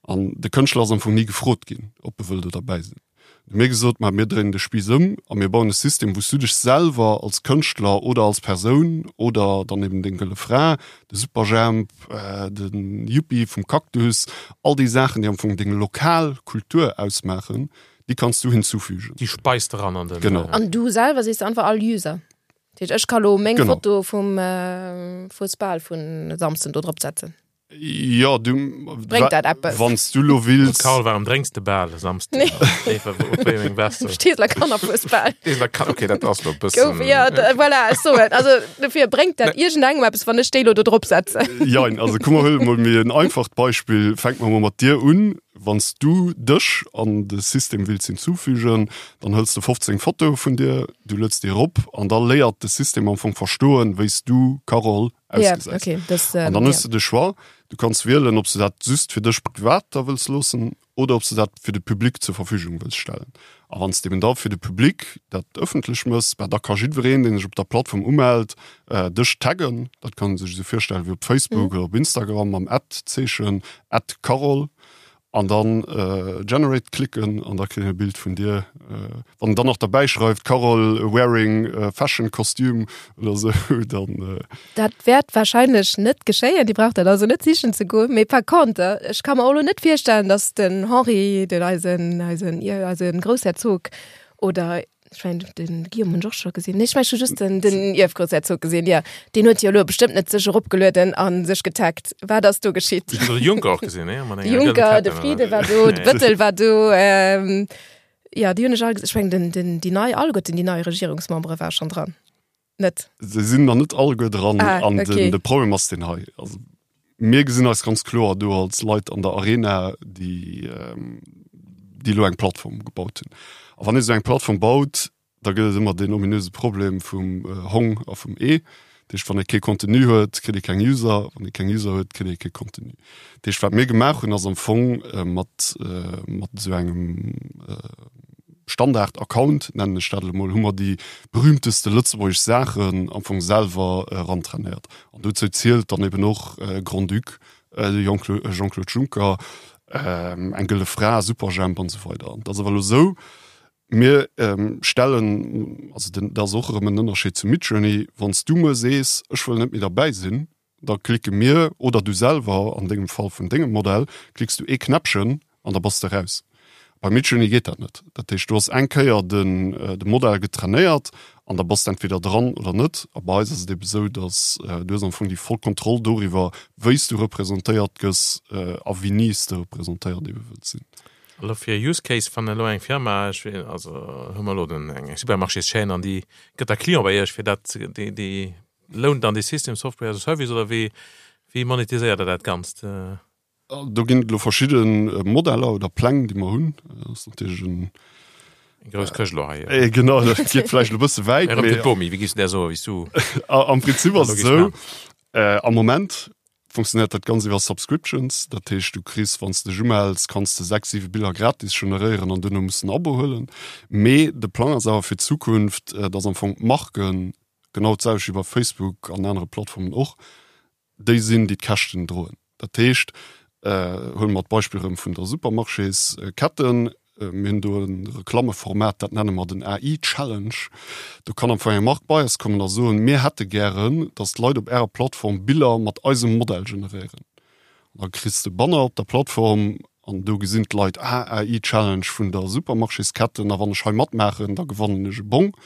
An de Kënschtler ass am Fong ni gefrot ginn, ob e wëll do derbäi sinn. Hu mir gesot, ma mir dréinen de Spiiss ëm a mir bauen e System, wou s du dech selwer als Kënschtler oder als Persoun oder dann eben deng gëlle Fra, de Superjhemp, de Yuppie vum Cactus, all déi Saachen, déi am Fong deng lokal Kultur ausmaachen, déi kanns du hinzufügen. Déi speis de ran an den. Genau. An du selwer sees einfach all User. Dat heescht, ech ka lo meng Genau. Foto vum Fuesbal vun e Samsden do drop setzen. Jo, du Bréngt dat eppes? Wann s du lo wills. Carl, warum drénks de bal e Samsden? Nee. Op wéi eng Weste? Steesler Kannerfuesbal. Steesler Kan-, okay, dat ass lo e bëssen. Gouf, ja, da, voilà, ech soen. Also, dofir bréngt dat iergendengem eppes, wann ech déi lo do drop setzen? Jein, also komm mer huele mol méi en einfacht Beispill. Fänke mer mol mat dir un. Wann s du dech an de System wills hinzufügen, dann hëls de 15 Fotoe vun dir, du lueds déi erop an da léiert de System am Fong verstoen, wéi s du, Carole, Ja, ausgesäit. okay, das, ähm, An dann hues ja. du de Choix, du kanns wielen, ob s du dat just fir dech privat da wëlls loossen oder ob s du dat fir de Public zur Verfügung wëlls stellen. A wann s de eben da fir de Public dat ëffentlech mëss, bah, da ka jiddwereen, deen sech op der Plattform umellt, äh, dech taggen. Dat kann ee sech esou virstellen wéi op Facebook mhm. oder op Instagram mam At-Zeechen, @carole. An dann Generate klicken an da kritt een e Bild vun dir. Wann en dann nach derbäi schreift Carole wearing fashion costume oder sou, dann. Dat wäert warscheinlech net geschéien, Dir braucht dat also net sichen ze goen. Mee par contre, ech ka mer och elo net virstellen, datt den Henri, den eisen, eisen, eise Groussherzog oder Ech mengen, den Guillaume hunn ech och scho gesinn. Nee, ech mengen, ech hu just den, den Ierfgroussherzog gesinn, jo. Deen huet jo elo bestëmmt net sech eropgelueden a sech getaggt. Wat ass do geschitt? Ech hunn de Juncker och gesinn, nee? Mat De enger gëllen Juncker, de Ketten, Frieden oder? war do, de Bëttel war do. Ähm, jo, déi hunn ech all gesinn. Ech mengen, den, den, déi nei, alleguerten déi nei Regierungsmembere war schonn dran. Net? Se sinn nach net alleguer dran. Ah, An okay. den, de Problem ass deen hei. Also, mir gesinn eis ganz kloer do als Leit an der Arena, déi, ähm, déi elo eng Plattform gebaut hunn. A wann ee sou eng Plattform baut, da gëtt et ëmmer deen ominöse Problem vum äh, Hong a vum Ee. Dat heescht, wann ee kee Contenu huet, kritt ee keng User. Wann ee keng User huet, kritt ee kee Contenu. Dat heescht, wat mir gemaach hunn, ass am Fong äh, mat, äh, mat esou engem äh, Standard-Account, nennen ech dat elo mol, hu mer déi berühmteste lëtzebuergesch Saachen am Fong selwer erantrainéiert. An dozou zielt dann eben och Grand-Duc, de Jean-Claude Juncker, eng gëlle Fra, Superjhemp an esou weider. An et ass awer elo esou, mir stellen, also den, dat ass och erëm en Ënnerscheed zu Midjourney, wann s du muer sees, ech wëll net méi derbäi sinn, Da klicke mir, oder du selwer, an dengem Fall vun dengem Modell, klicks du ee Knäppchen an da bass de raus. Bei Midjourney geet dat net. Dat heescht, du has eng Kéier den de Modell getrainéiert an da bass de entweder dran oder net. A bei eis ass et ebe sou, datt du hues am Fong déi voll Kontroll doriwwer, wéi s du representéiert gëss a wéini s de representéiert ebe wëlls sinn. Elo fir e Use Case, wann elo eng Firma, ech weess, also hu mer elo den eng Supermarchéschaîne an déi gëtt da Client bei Iech, fir dat déi déi Lount dann dee System Software as a Service oder wéi wéi monetiséiert der dat Ganzt? Do ginn et elo verschidde Modeller oder Pläng, déi mer hunn. Dat ass natierlech en. Eng grouss Këscht elo hei. Eh, genau, dat geet vläicht elo e bësse wäit. Erëm fir d'Bomi, wéi giffs de där soen, wéi s du. Am Prinzip ass et esou, am Moment. Funktionéiert dat Ganzt iwwer Subscriptions, dat heescht du kriss, wann s de dech umells, kanns de 6, 7 Biller gratis generéieren an duerno muss de en Abo huelen. Mee de Plang ass awer fir d'Zukunft, dass am Fong d'Marken, genau d'selwecht wéi bei Facebook an anere Plattformen och, déi sinn, déi d'Käschten droen. Dat heescht, huele mer d'Beispill erëm vun der Supermarchésketten, Mir hunn do e Reklammeformat, dat nenne mer den AI Challenge. Do kann am Fong eng Mark bei eis kommen a soen, mir hätte gären, datt d'Leit op Ärer Plattform Biller mat eisem Modell generéieren. An da kriss de Banner op der Plattform an do gesinn d'Leit, ah, AI Challenge vun der Supermarchésketten a wann ech hei matmaachen, da gewannen ech e Bong.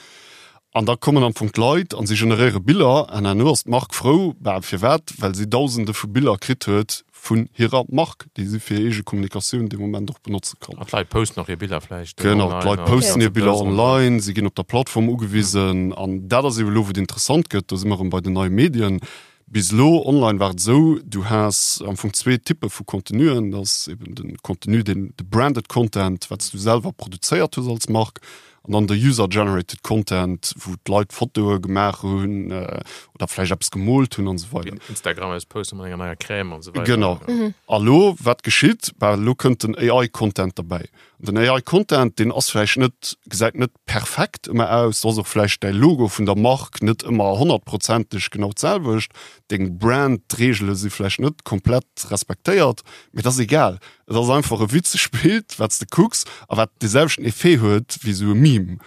An da kommen am Fong d'Leit an si generéiere Biller an herno ass d'Mark frou. Bah, firwat? Well si Dausende vu Biller kritt huet vun hirer Mark, déi si fir hir eege Kommunikatioun dee Moment och benotze kann. An d'Leit posten och hir Biller vläicht online. Genau, d'Leit posten hir Biller online, si ginn op der Plattform ugewisen. An dat ass ebe lo, wou et interessant gëtt, do si mer erëm bei den neie Medien. Bis elo online war et esou, du has am Fong zwee Typpe vu Contenuen. Dat ass eben de Contenu, deen, de branded Content, wat s du selwer produzéiert hues als Mark, An dann de User-Generated Content, wou d'Leit Fotoe gemaach hunn oder vläicht eppes gemoolt hunn an esou weider. Instagram eppes poste mat enger neier Crème an esou weider. Genau. A lo, wat geschitt? Bah, elo kënnt den AI-Content derbäi. An den AI-Content, deen ass vläicht net, gesäit net perfekt ëmmer aus, do ass och vläicht däi Logo vun der Mark net ëmmer honnertprozenteg genau d'selwecht, deng Brand-Reegele si vläicht net komplett respektéiert, mee dat ass egal. Et ass einfach e witzegt Bild, wat s de kucks a wat dee selwechten Effet huet wéi esou e Meme,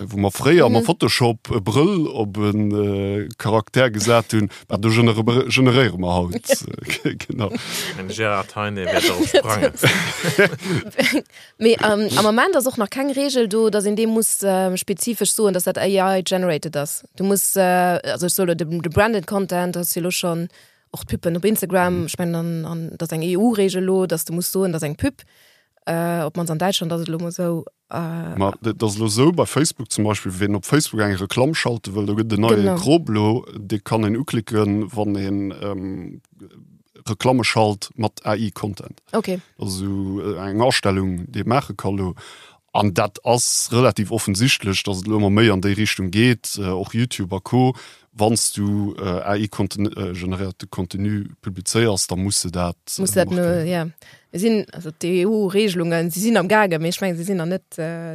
wou mer fréier mam Photoshop e Brëll op e Charakter gesat hunn. Bah, do generéiere mer haut. Genau. Den Gérard Heine wäert dorop sprangen. Mee am Ament ass och nach keng Reegel do, datt een deem muss spezifesch soen, datt dat AI-generated ass. Du muss, also ech soe lo, de branded Content ass jo elo schonn Och d'Püppen op Instagram, ech mengen an, an dat ass eng EU-Reegel elo, datt s de muss soen, dat ass eng Püpp. Op d'mannst an Däitschland ass et elo mol esou. Ma dat ass elo esou, bei Facebook zum Beispill, wien op Facebook eng Reklamm schalte wëll, do gëtt et en neie Krop elo, dee kann een uklicken, wann een Reklamme schalt mat AI-Content. Okay. Dat ass esou eng Astellung, déi ee maache ka elo. An dat ass relativ offensichtlech, datt et elo ëmmer méi an déi Richtung geet, och YouTube a Co. Wann s du AI-generéierte Contenu publizéiers, da muss de dat Muss dat markéieren. Ja. Mir sinn, also d'EU-Regelungen, si sinn am gaangen, mee ech mengen, si sinn nach net,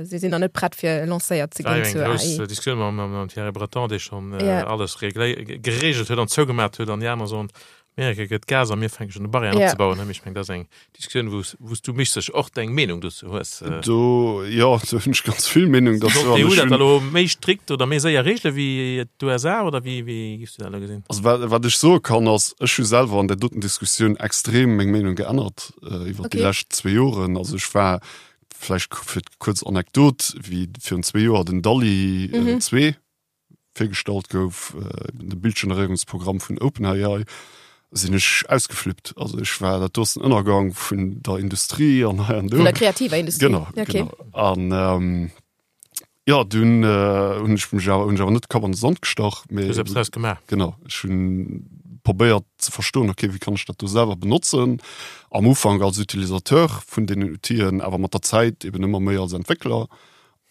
si sinn nach net prett fir lancéiert ze ginn zur AI. War jo eng grouss Diskussioun mam, mam Thierry Breton, dee schonn alles geregelt huet an zougemat huet an déi aner soen, Amerika gëtt Gas a mir fänke schonn u Barrièren yeah. opzebauen. Ech meng dat ass eng Diskussioun, wou s du mech sech och deng Meenung dozou hues. Do jo, do hunn ech ganz vill Meenung dozou. Soll d'EU dat elo méi strikt oder méi séier reegele wéi d'USA oder wéi wéi giffs du dat elo gesinn? Also wat, wat ech soe kann ass, ech hu selwer an där doten Diskussioun extrem meng Meenung geännert äh, iwwer okay. déi lescht zwee Joren. Also ech war vläicht fir kuerz Anekdot, wéi virun zwee Joer den DALL-E mhm. 2 virgestallt gouf, de Bildgeneréierungsprogramm vun OpenAI, sinn ech ausgeflippt. Also ech war, dat do ass den Ënnergang vun der Industrie an hei an do. Vun der kreativer Industrie. Genau, okay. genau. An ähm, ja, dunn äh, hunn ech mech awer, hunn ech awer net de Kapp an de Sand gestach, mee. Du hues eppes draus gemaach. Genau, ech hunn probéiert ze verstoen, okay, wéi kann ech dat do selwer benotzen? Am Ufank als Utilisateur vun deenen Outill'en, awer mat der Zäit eben ëmmer méi als Entwéckler.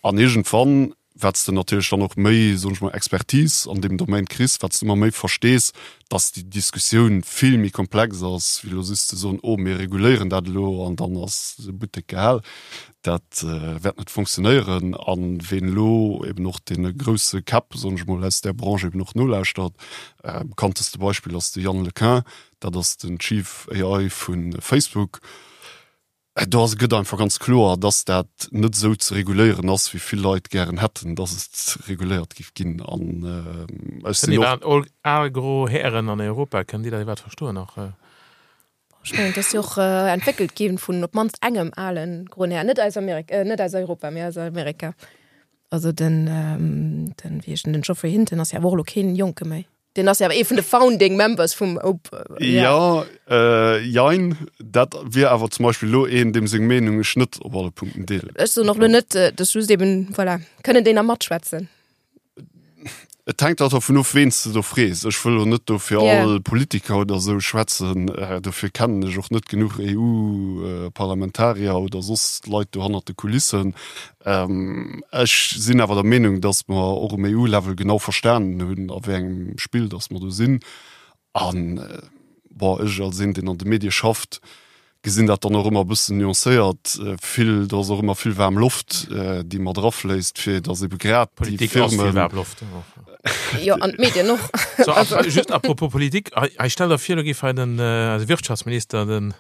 An iergendwann, wat s de natierlech dann och méi, soen ech mol, Expertise an deem Domaine kriss, wat s de ëmmer méi verstees, dass déi Diskussioun vill méi komplex ass, wéi elo just ze soen, oh mir reguléieren dat elo an dann ass de Buttek gehal. Dat wäert net fonctionnéieren. A ween elo eben och deene grousse Käpp, soen ech mol, aus där Branche eben och nolauschtert, bekannteste Beispill ass de Yann LeCun, dat ass den Chief AI vu Facebook, Do ass gëtt einfach ganz kloer, dass dat net esou ze reguléieren ass, wéi vill Leit gären hätten, dass et reguléiert géif ginn. An ech sinn och. All al gro Hären an Europa, kënnen déi dat iwwerhaapt verstoen nach? Ech mengen, et ass jo och entwéckelt gi vun op d'mannst engem ale groen Här, net aus Amerika, net aus Europa, mee aus Amerika. Also den, den, wéi heescht en, den Geoffrey Hinton ass jo awer och elo keen Jonke méi. Den ass ja awer ee vun de Founding Members vum Op. Ja, äh, jein. Dat wier awer zum Beispill elo een, deem seng Meenung ech net op alle Punkten deelen. Ech soen och elo net, äh, dass just eben, voilà, kënnen déi nach matschwätzen. Et hänkt halt dervun of, ween s de do frees. Ech wëll elo net do fir yeah. all Politiker oder esou schwätzen. Äh, dofir kennen ech och net genuch EU-Parlamentarier oder soss Leit do hannert de Kulissen. Ech sinn awer der Meenung, datt mer och um EU-Level genau verstanen hunn, a wéi engem Spill datt mer do sinn. A. Bon, ech als een, deen an de Medie schafft, gesinn dat dann och ëmmer e bëssen nuancéiert. Vill, do ass och ëmmer vill waarm Loft, déi mat erafléisst, fir datt ebe grad déi Politik ass vill Firmen. waarm Loft. Jo, an d'Medien och. So, a just à propos Politik, hei, hei stell der vir, elo géif hei den, eise Wirtschaftsminister, den,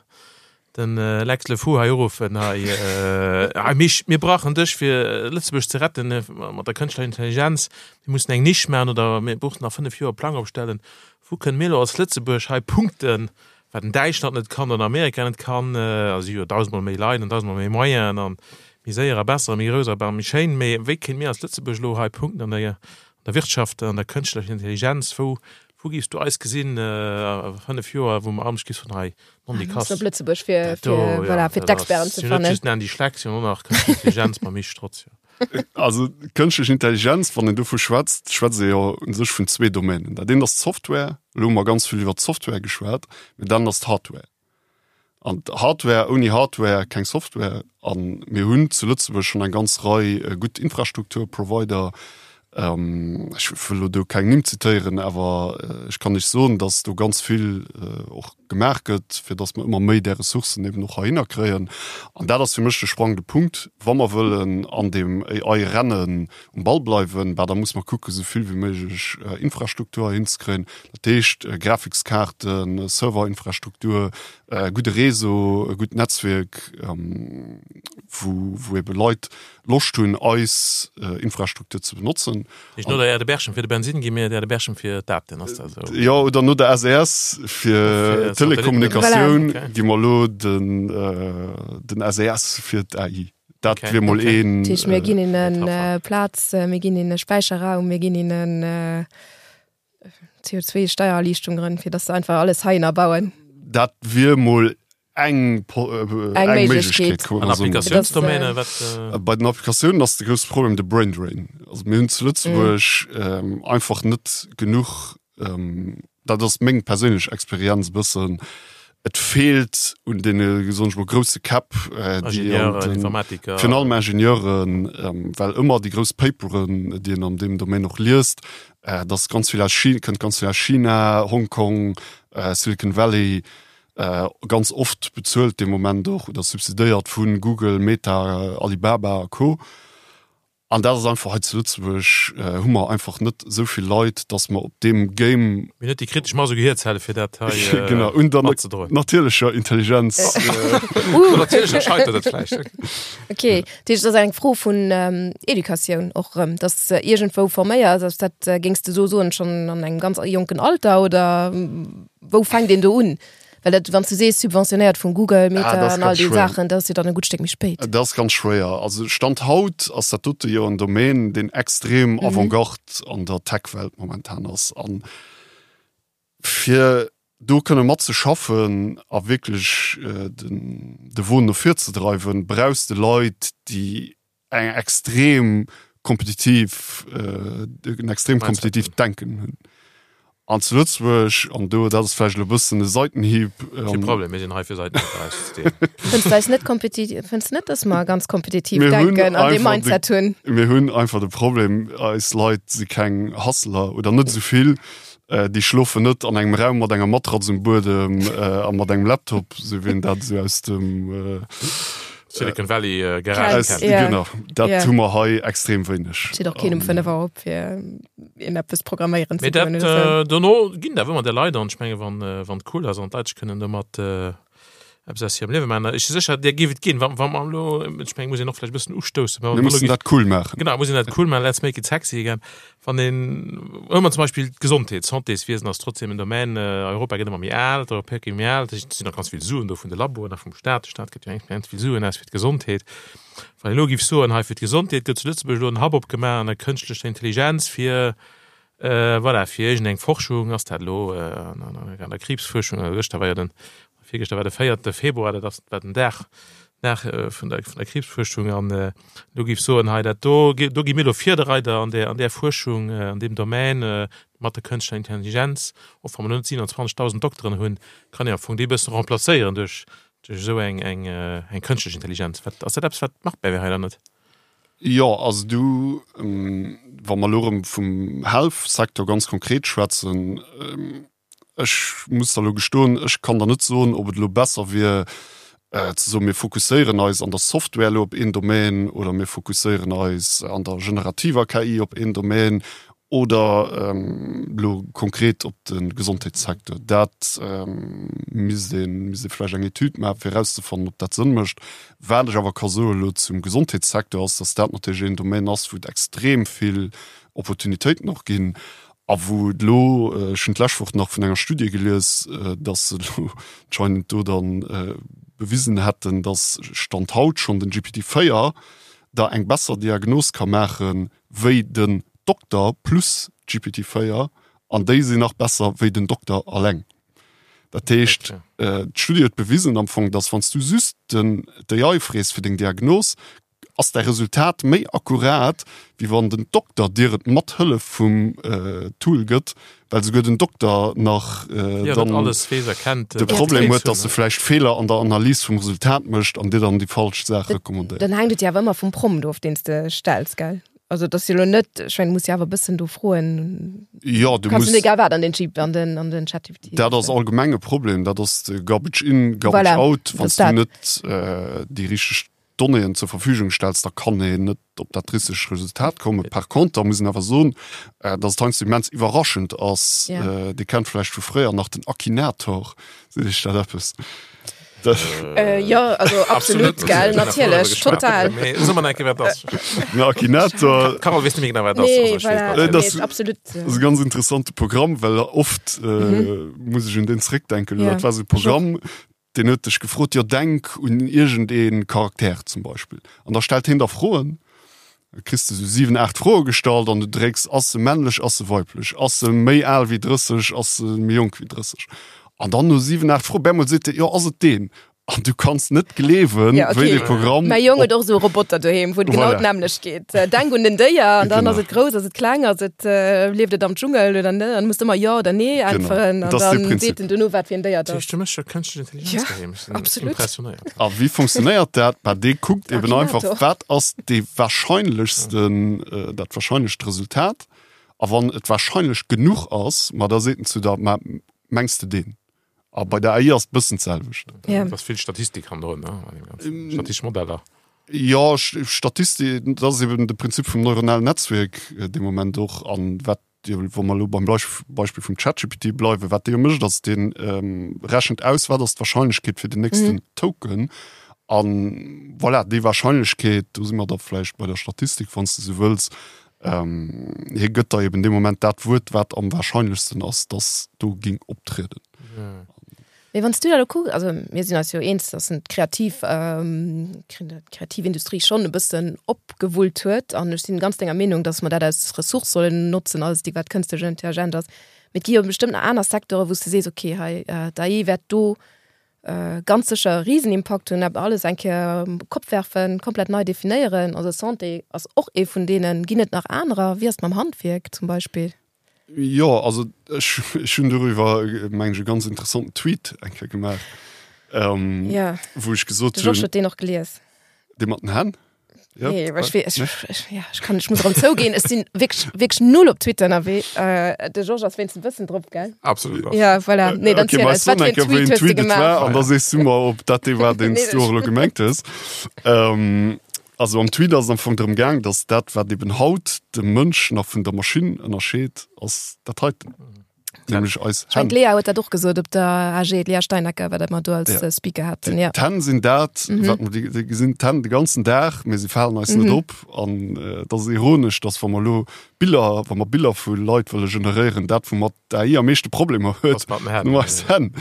den Lex Le Fou hei uruffen, hei, hei Misch, mir brauchen dech fir Lëtzebuerg ze retten mat der kënschtlecher Intelligenz, mir mussen eng Nisch maachen oder mir brauchen nach 5 Joer e Plang opstellen. Wou kënne mir elo als Lëtzebuerg hei punkten, wat en Däitschland net kann oder Amerika net kann? A si hu jo dausendmol méi Leit an dausendmol méi Moyenen an méi séier a besser a méi grouss a méi schéin. Mee wéi kéinte mir als Lëtzebuerg elo hei punkten an der, an der Wirtschaft, an der kënschtlecher Intelligenz? Wou, wou géifs du eis gesinn a 5 Joer, wou mer anescht gi soen, hei, non déi Kass, Op Lëtzebuerg fir, dat do, fir, jo, voilà, fir dat ass, d'Experten ze si hunn net fannen. just den Andy Schleck, si hunn och nach kënschtlech Intelligenz mam Misch Strotz, jo. Also kënschtlech Intelligenz, wann een dovu schwätzt, schwätzt ee jo u sech vun zwee Domänen. Dat eent ass d'Software, elo hu mer ganz vill iwwer d'Software geschwat, mee dat anert ass d'Hardware. An d'Hardware, ouni Hardware keng Software. A mir hunn zu Lëtzebuerg schonn eng ganz Rei gutt Infrastrukturprovider. Ech wëll elo do keng Nimm zitéieren, awer ech kann lech soen, datt do ganz vill och gemaach gëtt, fir datt mer ëmmer méi där Ressourcen eben och heihinner kréien. An dat ass fir mech de sprangende Punkt, wa mer wëllen an deem AI-Rennen um Ball bleiwen, bah da muss mer kucken, esou vill wéi méiglech Infrastruktur heihinzekréien, dat heescht Grafikskaarten, Serverinfrastruktur, e gudde Réseau, e gutt Netzwierk, wou wou ebe Leit Loscht hunn, eis Infrastruktur ze benotzen. Heescht no der Aire de Berchem fir de Bensin gi mir d'Aire de Berchem fir d'Daten, ass dat esou? Jo, oder no der SES fir Telekommunikatioun gi mer elo den den SES fir d'AI. Dat wier mol een. Dat heescht, mir ginn hinnen Plaz, mir ginn hinne Späicherraum, mir ginn hinnen CO2-Steiererliichtungen, fir datt se einfach alles heihinner bauen. Dat wier mol eng eng Méiglechkeet. An Applikatiounsdomäne, wat? Bei den Applikatiounen ass de grousse Problem de Brain Drain. Also mir hunn zu Lëtzebuerg einfach net genuch, dat ass meng perséinlech Experienz e bëssen, et feelt un deene, soen ech mol, grousse Käpp, déi an den, virun allem Ingenieuren, well ëmmer déi grouss Paperen, déi een an deem Domaine och liest, dat ass ganz vill aus China, kënnt ganz vill aus China, Hongkong, Silicon Valley, ganz oft bezuelt dee Moment och oder subsidéiert vu Google, Meta, Alibaba a Co. An dat ass einfach hei zu Lëtzebuerg hu mer einfach net esou vill Leit, datt mer op deem Game. Mir hunn net déi kritesch Mass u Gehierzelle fir dat hei genau, un der matzedroen. natierlecher Intelligenz. Un der natierlecher scheitert et vläicht. Okay, dat heescht, et ass eng Fro vun Educatioun och erëm, datt s de iergendwou forméiers. Ass dat, géings de esou soen, schonn an engem ganz jonken Alter oder? Wou fänkt een do un? Well dat, wann s du sees subventionéiert vun Google, Meta Ah, dat ass an all ganz déi schwéier. Saachen, dat ass jo dann e gutt Stéck méi spéit. Dat ass ganz schwéier. Also Stand haut ass dat dote jo en Domaine, deen extrem Avantgarde an der Tech-Welt momentan ass. An fir do kënne matzeschaffen a wierklech den de Won no vir ze dreiwen, brauchs de Leit, déi eng extrem kompetitiv en extrem kompetitiivt Denken hunn. An zu Lëtzebuerg, an do, dat ass vläicht elo e bëssen e Seitenhieb. Kee Problem, mir sinn hei fir Seitenhieb erauszedeelen. Fënns du eis net kompetitiv, fënns du net, dass mer ganz kompetitiv denken an dee Mindset hunn? Mir hunn einfach de Problem, eis Leit si keng Hustler oder net esou vill. Déi schlofen net an engem Raum mat enger Matratz um Buedem a mat engem Laptop, esou wéi een dat esou aus dem. Silicon Valley äh, Garage kennt. Ja. Genau, dat yeah. hu mer hei extrem wéineg. Steet och keen um 5 Auer op fir een eppes programméieren ze dat, äh, dono ginn da ëmmer der Leit an ech menge wann äh, wann cool ass an d'Leit kënnen domat äh, eppes aus hirem Liewe maachen. Ech si sécher der géif et ginn, wann wann mer elo ech meng muss een och vläicht e bëssen ustoussen. Mir mussen dat cool maachen. Genau, muss een dat cool maachen, let's make it sexy again. Wann een, huele mer zum Beispill d'Gesondheet, d'Santéswiesen ass trotzdem en Domaine, Europa gëtt ëmmer méi al, d'Europäer gi méi al, et sinn nach ganz vill Suen do vun de Laboen a vum Staat, de Staat gëtt jo immens vill Suen aus fir d'Gesondheet. Wann een elo géif soen, hei fir d'Gesondheet gëtt zu Lëtzebuerg elo en Hub opgemaach an der kënschtlecher Intelligenz fir, voilà, fir iergendeng Forschung, ass dat elo an der Kriibsfuerschung, also gëschter war jo den Virgëschter war de véierte Februar, dat ass war den Dag Dag vun der vun der Kriibsfuerschung an do géif soen, hei dat do do gi mir elo Virdereider an där an där Fuerschung an deem Domaine mat der kënschtlecher Intelligenz. Och wa mer elo net 27.000 Dokteren hunn, kann een am Fong déi e bëssen remplacéieren duerch duerch esou eng eng eng kënschtlech Intelligenz. Wat ass dat eppes wat machbar wär hei oder net? Jo, also du wa mer elo erëm vum Health-Secteur ganz konkret schwätzen. Ech muss der elo gestoen, ech kann der net soen, ob et elo besser wier ze soen, mir fokusséieren eis an der Software elo op een Domaine oder mir fokusséieren eis an der generativer KI op een Domaine oder elo konkret op de Gesondheetssecteur. Dat misst ee misst ee vläicht eng Etüd maachen, fir erauszefannen, ob dat Sënn mécht. Wat ech awer ka soen elo zum Gesondheetssecteur ass, datt dat natierlech een Domaine ass, wou et extrem vill Opportunitéiten och ginn a wou et elo, ech hunn d'lescht Woch nach vun enger Studie gelies, datt se elo anscheinend do dann bewisen hätten, datt Stand haut schonn den GPT 4 der eng besser Diagnos ka maache wéi den Dokter plus GPT 4 an déi sinn nach besser wéi den Dokter alleng. Dat heescht, d'Studie huet bewisen am Fong, datt wann s du just den d'AI frees fir deng Diagnos, ass däi Resultat méi akkurat, wéi wann den Dokter dir et mat Hëllef vum Tool gëtt, well souguer den Dokter nach dann de Problem huet, dass e vläicht Feeler an der Analys vum Resultat mécht an dir dann déi falsch Saach recommandéiert. Dann hänkt et jo awer ëmmer vum Prompt of, deen s de stells, gell? Also et ass jo elo net, ech mengen, du muss jo awer e bëssen do froen. Jo, du muss. Kanns net egal wat an den Jeep, an den, an den ChatGPT. Dat ass allgemeng e Problem, dat ass de Garbage in, Garbage out, wann s du net déi richteg Donnéeën zur Verfügung stells, da kann een net op dat richtegt Resultat kommen. Par conter muss een awer soen, dass et heiansdo immens iwwerraschend ass. Ja. Dir kennt vläicht vu fréier nach den Akinator. Seet Iech dat eppes? Äh, jo, also absolut, absolut gell, natierlech, total. Mee so mer enke wat ass. Den Akinator. Carole weess net méi genau wat ass. Nee, also, voilà, nee, das, absolut. Das ass e ganz interessante Programm, well oft äh, mhm. muss ech un den zréckdenken. Ja. Dat war so e Programm, Deen huet dech gefrot, jo denk un iergend ee Charakter zum Beispill. An da stellt hien der Froen, da kriss de sou 7, 8 Froe gestallt an du drécks, ass se männlech, ass se weiblech, ass se méi al wéi 30, ass se méi jonk wéi 30. An dann no 7, 8 Froen, bemol seet e, jo ass et deen. An du kanns net gleewen, ja, okay. wéi dee Programm. Mäi Jong huet och esou e Roboter doheem, wou et genau voilà. d'nämmlecht geet. Äh, denk un den Déier an dann ass et grouss, ass et kleng, ass et äh, lieft et am Dschungel oder net. An muss ëmmer jo oder nee äntweren an dann seet en duerno wat fir en Déier et ass. Du méchs jo kënschtlech Intelligenz Ja, doheem. Ech sinn absolut. impressionéiert. A wéi funktionéiert dat? Bah, dee kuckt eben einfach, Akinator. wat ass dee wahrscheinlechsten, äh, dat wahrscheinlecht Resultat. A wann et wahrscheinlech genuch ass, ma da seet en zu der, ma mengs de deen? A bei der AI ass et bëssen d'selwecht. Ja. Da ass vill Statistik hannendrun, ne? An deem Ganzen. Statistesch Modeller. Jo, Statistik, dat ass eben de Prinzip vum neuronalen Netzwierk dee Moment och. An wat jo, wa mer elo beim Beispill vum ChatGPT bleiwen, wat dee jo mécht, ass, dee rechent aus, wat ass d'Warscheinlechkeet fir den nächsten Token. An voilà, déi Warscheinlechkeet, do si mer da vläicht bei der Statistik, wann s de esou wëlls, hie gëtt der eben dee Moment dat Wuert, wat am warscheinlechsten ass, dass do géing optrieden. Mee wann s du dat elo kucks, also mir sinn eis jo eens, dass en d'kreativ, d'kreativ Industrie schonn e bëssen opgewullt huet an ech sinn ganz denger Meenung, dass mer dat als Ressource sollen notzen, alles déi wat kënstlech intelligent ass. Mee et gi jo bestëmmt nach aner Secteuren, wou s de sees, okay, hei d'AI wäert do ganz sécher e Risenimpakt hunn, awer alles eng Kéier op Kopp werfen, komplett nei definéieren. Also Santé ass och ee vun deenen. Ginn et nach anerer? Wéi ass et mam Handwierk zum Beispill? Jo, also ech, ech hunn doriwwer, meng ech, e ganz interessanten Tweet eng Kéier gemaach, ähm, Ja. wou ech gesot De Georges hunn, huet deen och gelies. dee mat den Hänn? Ja, Nee, well ech, ech, ech, ja, ech kann, ech muss erëm zouginn, ech sinn wierklech, wierklech null op Twitter ënnerwee. Äh, de Georges ass wéinstens e bëssen drop, gell? Absolut. Ja, voilà. Nee, dann okay, ziel ma eis, wat soen fir eng en Kéier, wéi Tweet en hues de Tweet et gemaach? war, an da sees du mer, ob dat dee war, deen s Nee, du och elo gemengt hues. Ähm, also am Tweet ass et am Fong drëm gaang, datt dat, wat eben haut de Mënsch nach vun der Maschinn ënnerscheet, ass dat heiten. Nämlech eis Ech meng Hänn. d'Lea huet dat och gesot op der AG, d'Lea Steinacker, wat mer do als Ja. äh, Speaker haten. Ja. D'Hänn sinn dat, Mhm. wat mer, déi, déi gesinn d'Hänn de ganzen Dag, mee se falen eis net Mhm. op. An äh, dat ass ironesch, dass wa mer elo Biller, wa mer Biller vu Leit wëlle generéieren, dat woumat d'AI am meeschte Problemer huet, Ass mat den Hänn. nur eis Hänn.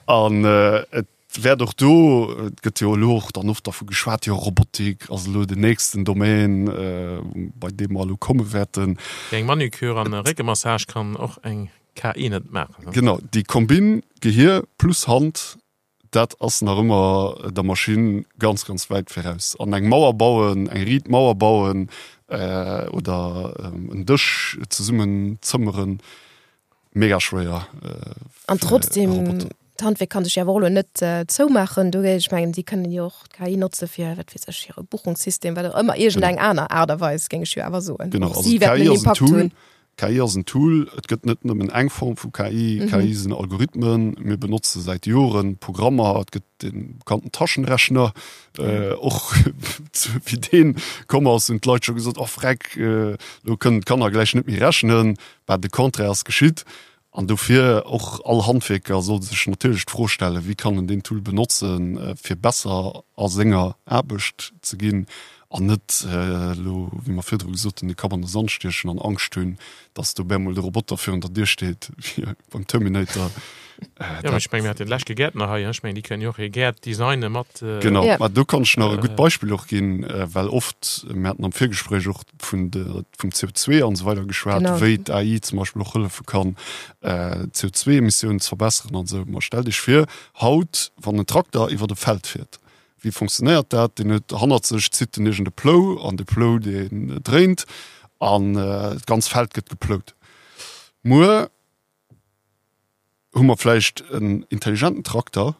An äh, et wäert och do, et gëtt jo elo och dann oft dervu geschwat, jo Robotik ass elo den nächsten Domaine, bei deem mer elo komme wäerten. Eng Manucure an e Réckemassage kann och eng KI net maachen, ne? Genau, déi Kombinn Gehier plus Hand, dat ass nach ëmmer der Maschinn ganz, ganz wäit viraus. An eng Mauer bauen, eng riit Mauer bauen oder en Dësch zesummen zëmmeren, Mega schwéier. An trotzdem, d'Handwierk kann sech jo awer och elo net zoumaachen do. Ech mengen, si kënnen jo och d'KI notze fir, wat weess ech, hire Buchungssystem, wat och ëmmer, iergendeng aner Aart a Weis, géing ech jo awer soen. Genau, Och also si wäerten d'KI en ass en Impakt Tool. hunn. KI ass en Tool, et gëtt net nëmmen eng Form vu KI. KI sinn Algorithmen, mir benotze säit Joren Programmer, et gëtt de bekannten Taschenrechner, och wéi dee komm ass, hunn d'Leit scho gesot, oh freck, elo kënnen d'Kanner gläich net méi rechnen. Bah, de Contraire ass geschitt. An dofir, och all Handwierker soll sech natierlech d'Fro stellen, wéi kann en deen Tool benotzen, fir besser a senger Aarbecht ze ginn an net elo, wéi mer virdru gesot hunn, de Kapp an de Sand stiechen an Angscht hunn, dass do bemol de Roboter virun der Dier steet, wéi beim Terminator. Jo, ech mengen, mir haten leschte Gäertner hei, ech mengen, déi kënnen jo och hir Gäert designen mat. Genau, mä do kann ech nach e gutt Beispill och ginn, well oft, mir haten am Virgespréich och vun de, vum CO2 an esou weider geschwat, genau. wéi d'AI zum Beispill och hëllefe kann, äh, d'CO2-Emissiounen ze verbesseren an esou. Ma stellt Iech vir, haut, wann en Trakter iwwer e Feld fiert, wéi funktionéiert dat? Deen huet hannert sech, zitt en iergend e Plou an de Plou, deen dréint an äh, d'ganz Feld gëtt geplout. Muer hu mer vläicht en intelligenten Trakter,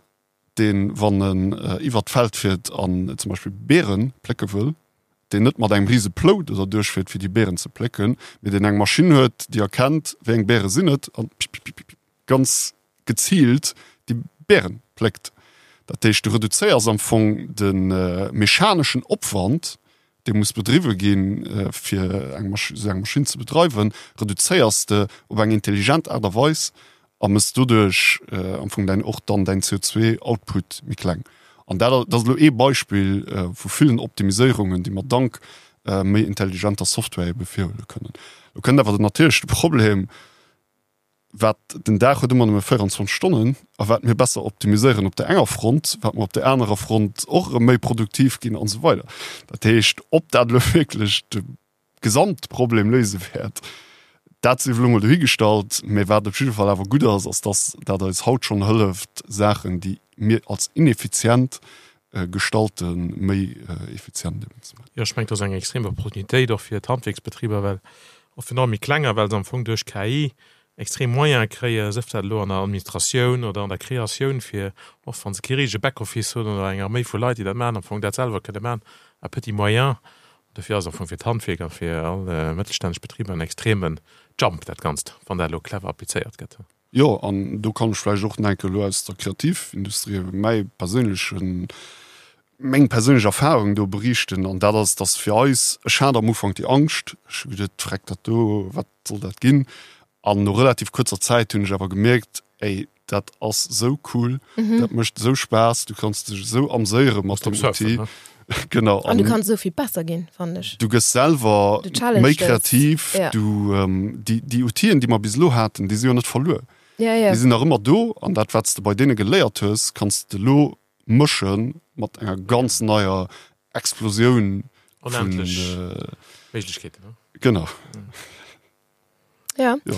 deen, wann en iwwert d'Feld fiert an zum Beispill Beere plécke wëll, deen net mat engem rise Plou do derduerch fiert, fir déi Beeren ze plécken, mee deen eng Maschinn huet, déi erkennt, wéi eng Beere sinn et, an pipipipip ganz geziilt déi Beeren pléckt. Dat heescht, du reduzéiers am Fong de mechaneschen Opwand, dee muss bedriwwe ginn, fir eng esou eng Maschinn ze bedreiwen, reduzéiers de op eng intelligent Aart a Weis a mëss doduerch am Fong däin och dann däin CO2-Output méi kleng. An dat dat ass elo ee Beispill vu villen Optimiséierungen, déi mer dank méi intelligenter Software ebe virhuele kënnen. Lo kënnt awer natierlech de Problem, wat den Dag huet ëmmer nëmme 24 Stonnen a wat mir besser optimiséieren op der enger Front, wat mer op der anerer Front och erëm méi produktiv ginn an esou weider. Dat heescht, ob dat elo wierklech de Gesamtproblem léise wäert, dat sief elo mol dohigestallt. Mä wat op jidde Fall awer gutt ass, ass dass dat eis haut schonn hëlleft, Saachen, déi mir als ineffizient gestalten, méi effizient eben ze maachen. Jo, ech mengen, dat ass eng extrem Opportunitéit och fir d'Handwierksbetriber, well och virun allem méi klenger, well se am Fong duerch KI extrem Moyene kréien, sëf dat elo an der Administratioun oder an der Kreatioun, fir och wa se kee richtege Backoffice hunn oder eng Arméi vu Leit, déi dat maachen, am Fong dat selwer kënne maachen à petits moyens. Dofir ass am Fong fir d'Handwierk a fir all mëttelstänneg Betriber en extreme Jump dat Ganzt, wann dat elo clever applizéiert gëtt. Jo, an do kann ech vläicht och nach eng Kéier elo aus der Kreativindustrie mäi perséinlechen, meng perséinlech Erfahrung do beriichten. An dat ass, dass fir eis, ech hat am Ufank déi Angscht, ech hu geduet, Vreck, dat do, wat soll dat ginn? An no relativ kuerzer Zäit hunn ech awer gemierkt, ey, dat ass esou cool, dat mécht esou Spaass, du kanns dech esou amséiere mat dem Outil. Genau. An du kanns esou vill besser ginn, fannen ech. Du gëss selwer méi kreativ. Ja. Du, ähm, déi, déi Outien, déi mer bis elo haten, déi si jo net verluer. Ja, ja. Déi sinn nach ëmmer do an dat, wat s de bei deene geléiert hues, kanns de elo mësche mat enger ganz neier Explosioun vun. Onendlech Méiglechkeeten, ne? Genau. Ja. ja.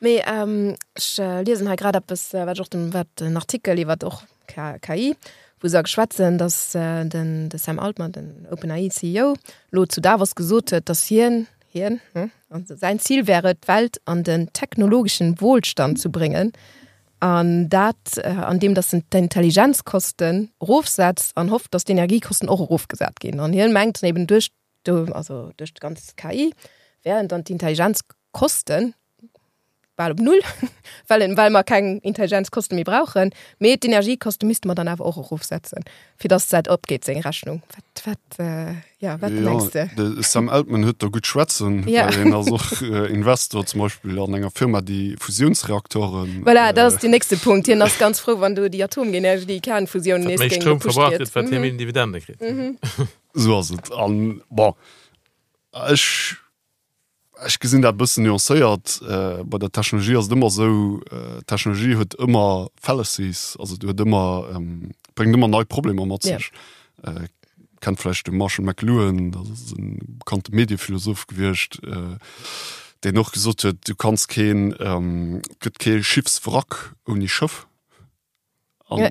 Mee ähm, ech äh, liesen hei grad eppes, äh, wat och den, wat den Artikel iwwer och KI, wou se geschwätzen, dass äh, den de Sam Altman, den OpenAI CEO, lo zu Davos gesot huet, dass hien hien hm, also säin Ziel wäre d'Welt an den technologischen Wohlstand zu bringen. An dat äh, an dem dass en d'Intelligenzkosten erofsetzt an hofft, dass d'Energiekosten och erofgesat ginn. An hien mengt eben duerch do, also duerch d'ganz KI, wären dann d'Intelligenzkosten bal op Null, well, well mer keng Intelligenzkosten méi brauchen, mee d'Energiekoste misste mer dann awer och erofsetzen, fir dass dat opgeet, seng Rechnung. Wat, wat, äh, ja, wat ja, mengs de? De Sam Altman huet do gutt schwätzen, ja. well hien ass och äh, Investor zum Beispill an enger Firma, déi Fusiounsreaktoren. Voilà, dat ass äh, den nächste Punkt. Hien ass ganz frou, wann do déi Atomenergie, déi Kernfusioun nees géing Stroum verbraucht gëtt, wat hie méi Dividende kritt. Mhm. Esou ass et. An bon, ech, ech gesinn dat e bëssen nuancéiert. Bei der Technologie ass et ëmmer esou, d'Technologie huet ëmmer Fallacies, also huet ëmmer, bréngt ëmmer nei Problemer mat sech. Kennt vläicht de Marshall McLuhan, dat ass e bekannte Mediephilosoph gewiescht, deen och gesot huet, du kanns keen, et gëtt kee Schiffswrack ouni Schëff. An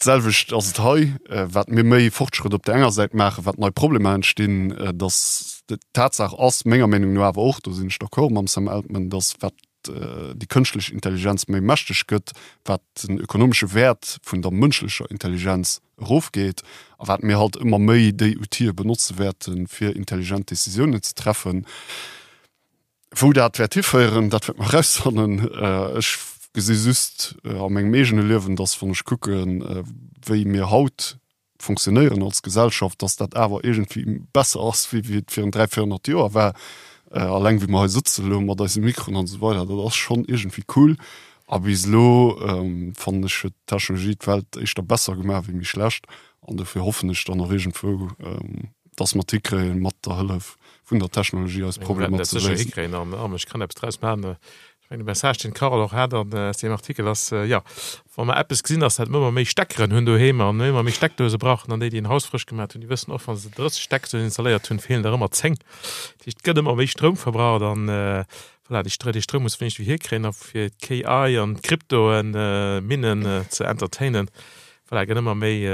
d'selwecht ass et hei, wat mir méi Fortschrëtt op der enger Säit maachen, wat nei Problemer entstinn, dass d'Tatsaach ass, menger Meenung no awer och, do sinn ech d'accord mam Sam Altman, dass wat déi kënschtlech Intelligenz méi mächteg gëtt, wat den ökonomesche Wäert vun der mënschlecher Intelligenz erofgeet a wat mir halt ëmmer méi déi Outile benotze wäerten, fir intelligent Décisiounen ze treffen. Wou dat wäert hiféieren, dat wäerte mer erausfannen. Ech gesi just a mengem eegene Liewen, dass, wann ech kucken, wéi mir haut fonctionnéieren als Gesellschaft, dass dat awer iergendwéi besser ass, wéi wéi et virun 300, 400 Joer war. Alleng wéi mer hei sëtzen elo mat eise Mikroen an esou weider, dat ass schonn iergendwéi cool. A bis elo, fannen ech, huet d'Technologie d'Welt éischter besser gemaach wéi méi schlecht. An dofir hoffen ech dann och iergendwou, dass mer et hikréien, mat der Hëllef vun der Technologie eis Problemer ze léisen. Hikréien an ech kann eppes draus maachen. Ech mengen de Message deen d'Carole och hat an aus deem Artikel ass, jo, wa mer eppes gesinn, ass dat mer ëmmer méi Steckeren hunn doheem an ëmmer méi Steckdose brauchen an déi, déi en Haus frësch gemaat hunn, déi wëssen och, wa se 30 Steckdosen installéiert hunn, feelen der ëmmer 10. Dat heescht, et gëtt ëmmer méi Stroum verbraucht an voilà, dee Stroum muss mer iergendwéi hierkréien a fir d'KI an d'Kryptoen Minnen ze entertainen, voilà, gëtt ëmmer méi,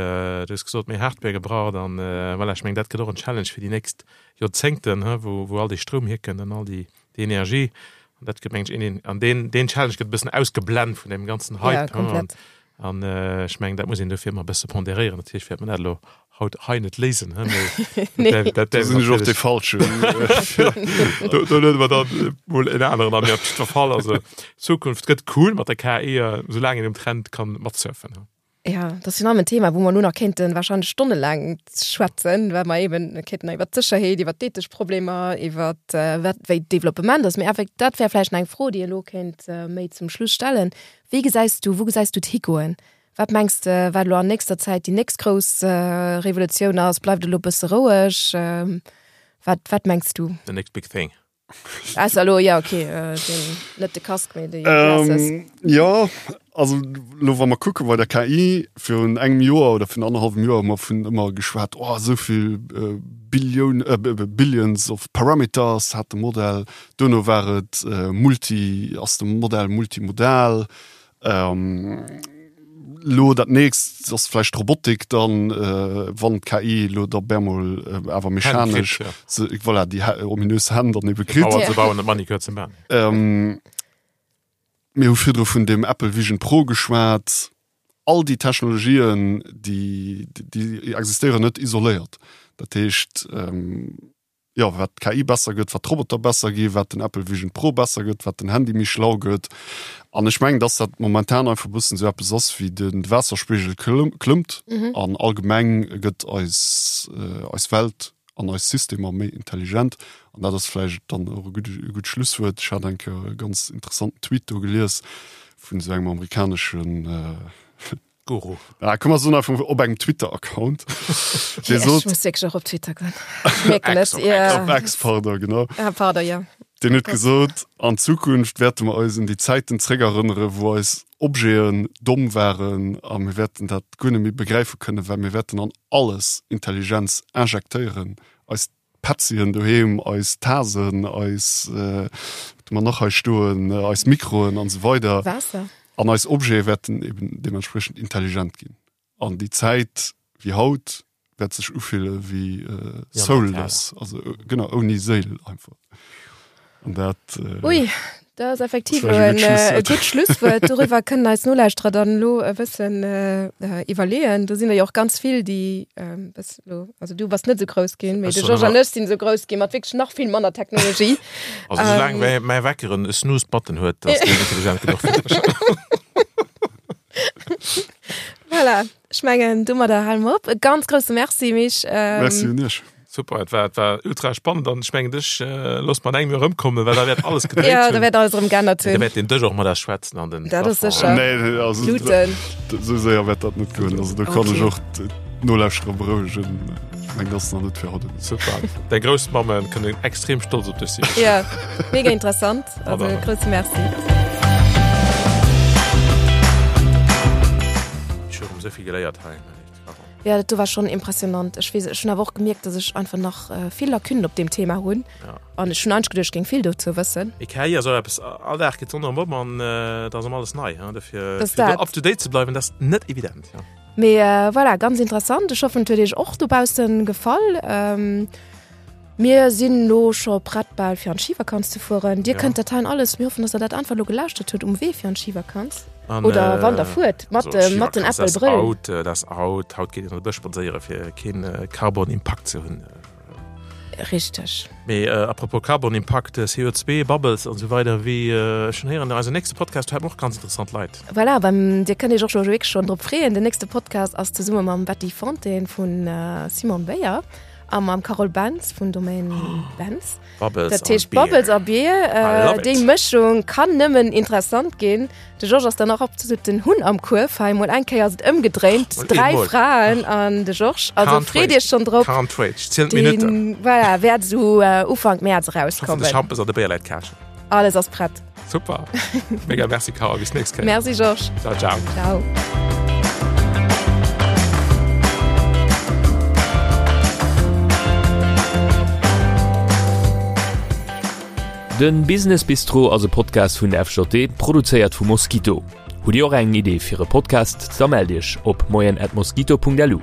du hues gesot, méi Hardware gebraucht an voilà, ech mengen dat gëtt och en Challenge fir déi nächst Joerzéngten, wou wou all dee Stroum hierkënnt an all déi déi Energie an dat gëtt mengen ech een an deen deen Challenge gëtt e bëssen ausgeblent vun deem ganzen Hype. Ja, komplett. An ech mengen dat muss een dofir ëmmer e bësse ponderéieren. Natierlech wäert mer dat elo haut hei net léisen, he, mee Nee. dat dat Do sinn ech och dee Falschen. Do do luede mer dann mol en aneren an, mee op jiddwer Fall, also d'Zukunft gëtt cool mat der KI, soulaang een um Trend kann matsurfen, he. Ja, dat ass jo nach en Thema, wou mer elo nach kéinten wahrscheinlech stonnelaang schwätzen, well mer eben kéinten iwwer d'Sécherheet, iwwer d'ethesch Problemer, iwwer wat wéi d'Developpement ass. Mee effekt dat wär vläicht nach eng Fro, déi ee elo kéint méi zum Schluss stellen. Wéi gesäis du, wou gesäis du et higoen? Wat mengs de, wat elo an nächster Zäit déi nächst grouss Revolutioun ass? Bleift et elo e bësse roueg? Wat, wat mengs du? The next big thing. Ausser elo, ja okay, den, net de Casque, mee déi Glasses. Jo, also elo wa mer kucke bei der KI, virun engem Joer oder virun annerhallwem Joer hu mer vun ëmmer geschwat, oh esou vill Billioun, Billions of Parameters hat de Modell. Duerno war et multi, ass de Modell multimodal. Elo dat nächst ass vläicht d'Robotik dann, wann d'KI elo da bemol awer mechanesch, voilà, déi ominös Hänn dann ebe kritt. Bauer ze bauen, net Manicure ze man. Mir hu virdru vun dem Apple Vision Pro geschwat. All déi Technologien, déi, déi existéieren net isoléiert. Dat heescht, jo, wat d'KI besser gëtt, wat d'Roboter besser gi, wat den Apple Vision Pro besser gëtt, wat den Handy méi schlau gëtt. An ech mengen, dass dat momentan einfach e bëssen esou eppes ass wéi de Waasserspigel klëmmt an allgemeng gëtt eis, eis Welt an eis Systemer méi intelligent. An dat ass vläicht dann och e gutt, e gutt Schlusswuert. Ech hat eng Kéier e ganz interessanten Tweet do gelies vun esou engem amerikaneschen, Guru. Ah, komm, mer soen einfach op engem Twitter-Account. Dee sot. Ech muss wierklech och op Twitter goen. Ech mierken et, ja. Op X, pardon, genau. Ah, pardon, ja. Deen huet gesot, an Zukunft wäerte mer eis un déi Zäiten zréckerënnere wou eis Objeten domm waren a mir wäerten dat guer net méi begräife kënnen, well mir wäerten an alles Intelligenz injektéieren, eis Petzien doheem, eis Tasen, eis, wat hu mer nach hei stoen, eis Mikroen an esou weider. Waasser. An eis Objete wäerten eben deementspriechend intelligent ginn. An déi Zäit wéi haut wäert sech ufille wéi soulless, also genau, ouni Séil einfach. An dat. Ui, dat ass effektiv elo en gutt Schlusswuert. Doriwwer kënnen eis Nolauschterer dann elo e bëssen iwwerleeën. Do sinn der jo och ganz vill, déi bëssen elo, also du bass net esou grouss ginn, mee de Georges an ech sinn esou grouss ginn mat wierklech nach vill manner Technologie. Also soulaang mäi mäi Wecker en Snooze-Button huet, ass deen intelligent genuch fir mech. Voilà, ech mengen domadder hale mer op. E ganz grousse Merci, Mich. Merci un iech. Super, et war, et war ultra spannend an ech mengen dech äh, looss mer an engem Joer erëmkommen, well da wäert alles gedréit Ja, da wäert alles erëm geännert hunn. Da wäert den Dësch och mat eis schwätzen an den Dat ass sécher. Nee, also, Bluten. Esou séier wäert dat net goen. Also do kann ech och d'Nolauschterer berouegen. Ech mengen, dat ass nach net fir haut. Super. Däi Groussmammen kënnen extrem stolz op dech sinn. Ja, mega interessant. Also grousse Merci. Ech hu erëm esou vill geléiert hei. Ja, dat do war schon impressionant. Ech weess, ech hunn awer och gemierkt, dass ech einfach nach äh, vill Lacunen op deem Thema hunn. Ja. An ech hunn eigentlech geduecht, ech géing vill dozou wëssen. Mee KI ass och eppes, all Dag geet d'Sonn erëm op an äh, da ass ëm alles nei. Hein? Dofir Das fir do dat. up to date ze bleiwen, dat ass net evident. Ja. Mee äh, voilà, ganz interessant. Ech hoffen, et huet iech och dobaussen gefall. Ähm, Mir sinn elo scho prett bal fir an d'Schivakanz ze fueren. Dir kënnt dat heien alles, mir hoffen, dass der dat einfach elo gelauschtert hutt um Wee fir an d'Schivakanz. Oder wann der fuert mat dem mat den Apple Brëll. Haut, dat ass haut, haut geet een an de Bësch spadséiere fir keen Carbon Impakt ze hunn. Richteg. Mee à propos Carbon-Impakt, CO2, Bubbles an esou weider, wéi ech schonn héieren, eisen nächste Podcast, do hätte mer och ganz interessant Leit. Voilà, beim, Dir kënnt Iech och scho wierklech schonn drop freeën. Den nächste Podcast ass zesumme mam Betty Fontaine vun Simon Beyer a mam Carole Bentz vun Domaine Bentz. Bubbles Dat heescht Bubbles a Bier, déi Mëschung kann nëmmen interessant ginn. De Georges ass dann och absolut den Hunn am Kuerf hei. Mol eng Kéier ass et ëmgedréint, dräi Fraen an de Georges. Also freet Iech schonn drop. Can't wait, ech zielen d'Minutten. Voilà, wäert esou Ufank Mäerz erauskommen. Ech hoffen, de Schampes an de Béier läit käschen. Alles ass prett. Super. Mega merci Carole, bis nächst Kéier. Merci Georges. Ciao, ciao. Ciao. Den Business Bistro ass e Podcast vun der FJD, produzéiert vu Mosquito. Hutt Dir och eng Idee fir e Podcast? Da mellt Iech op moien@mosquito.lu.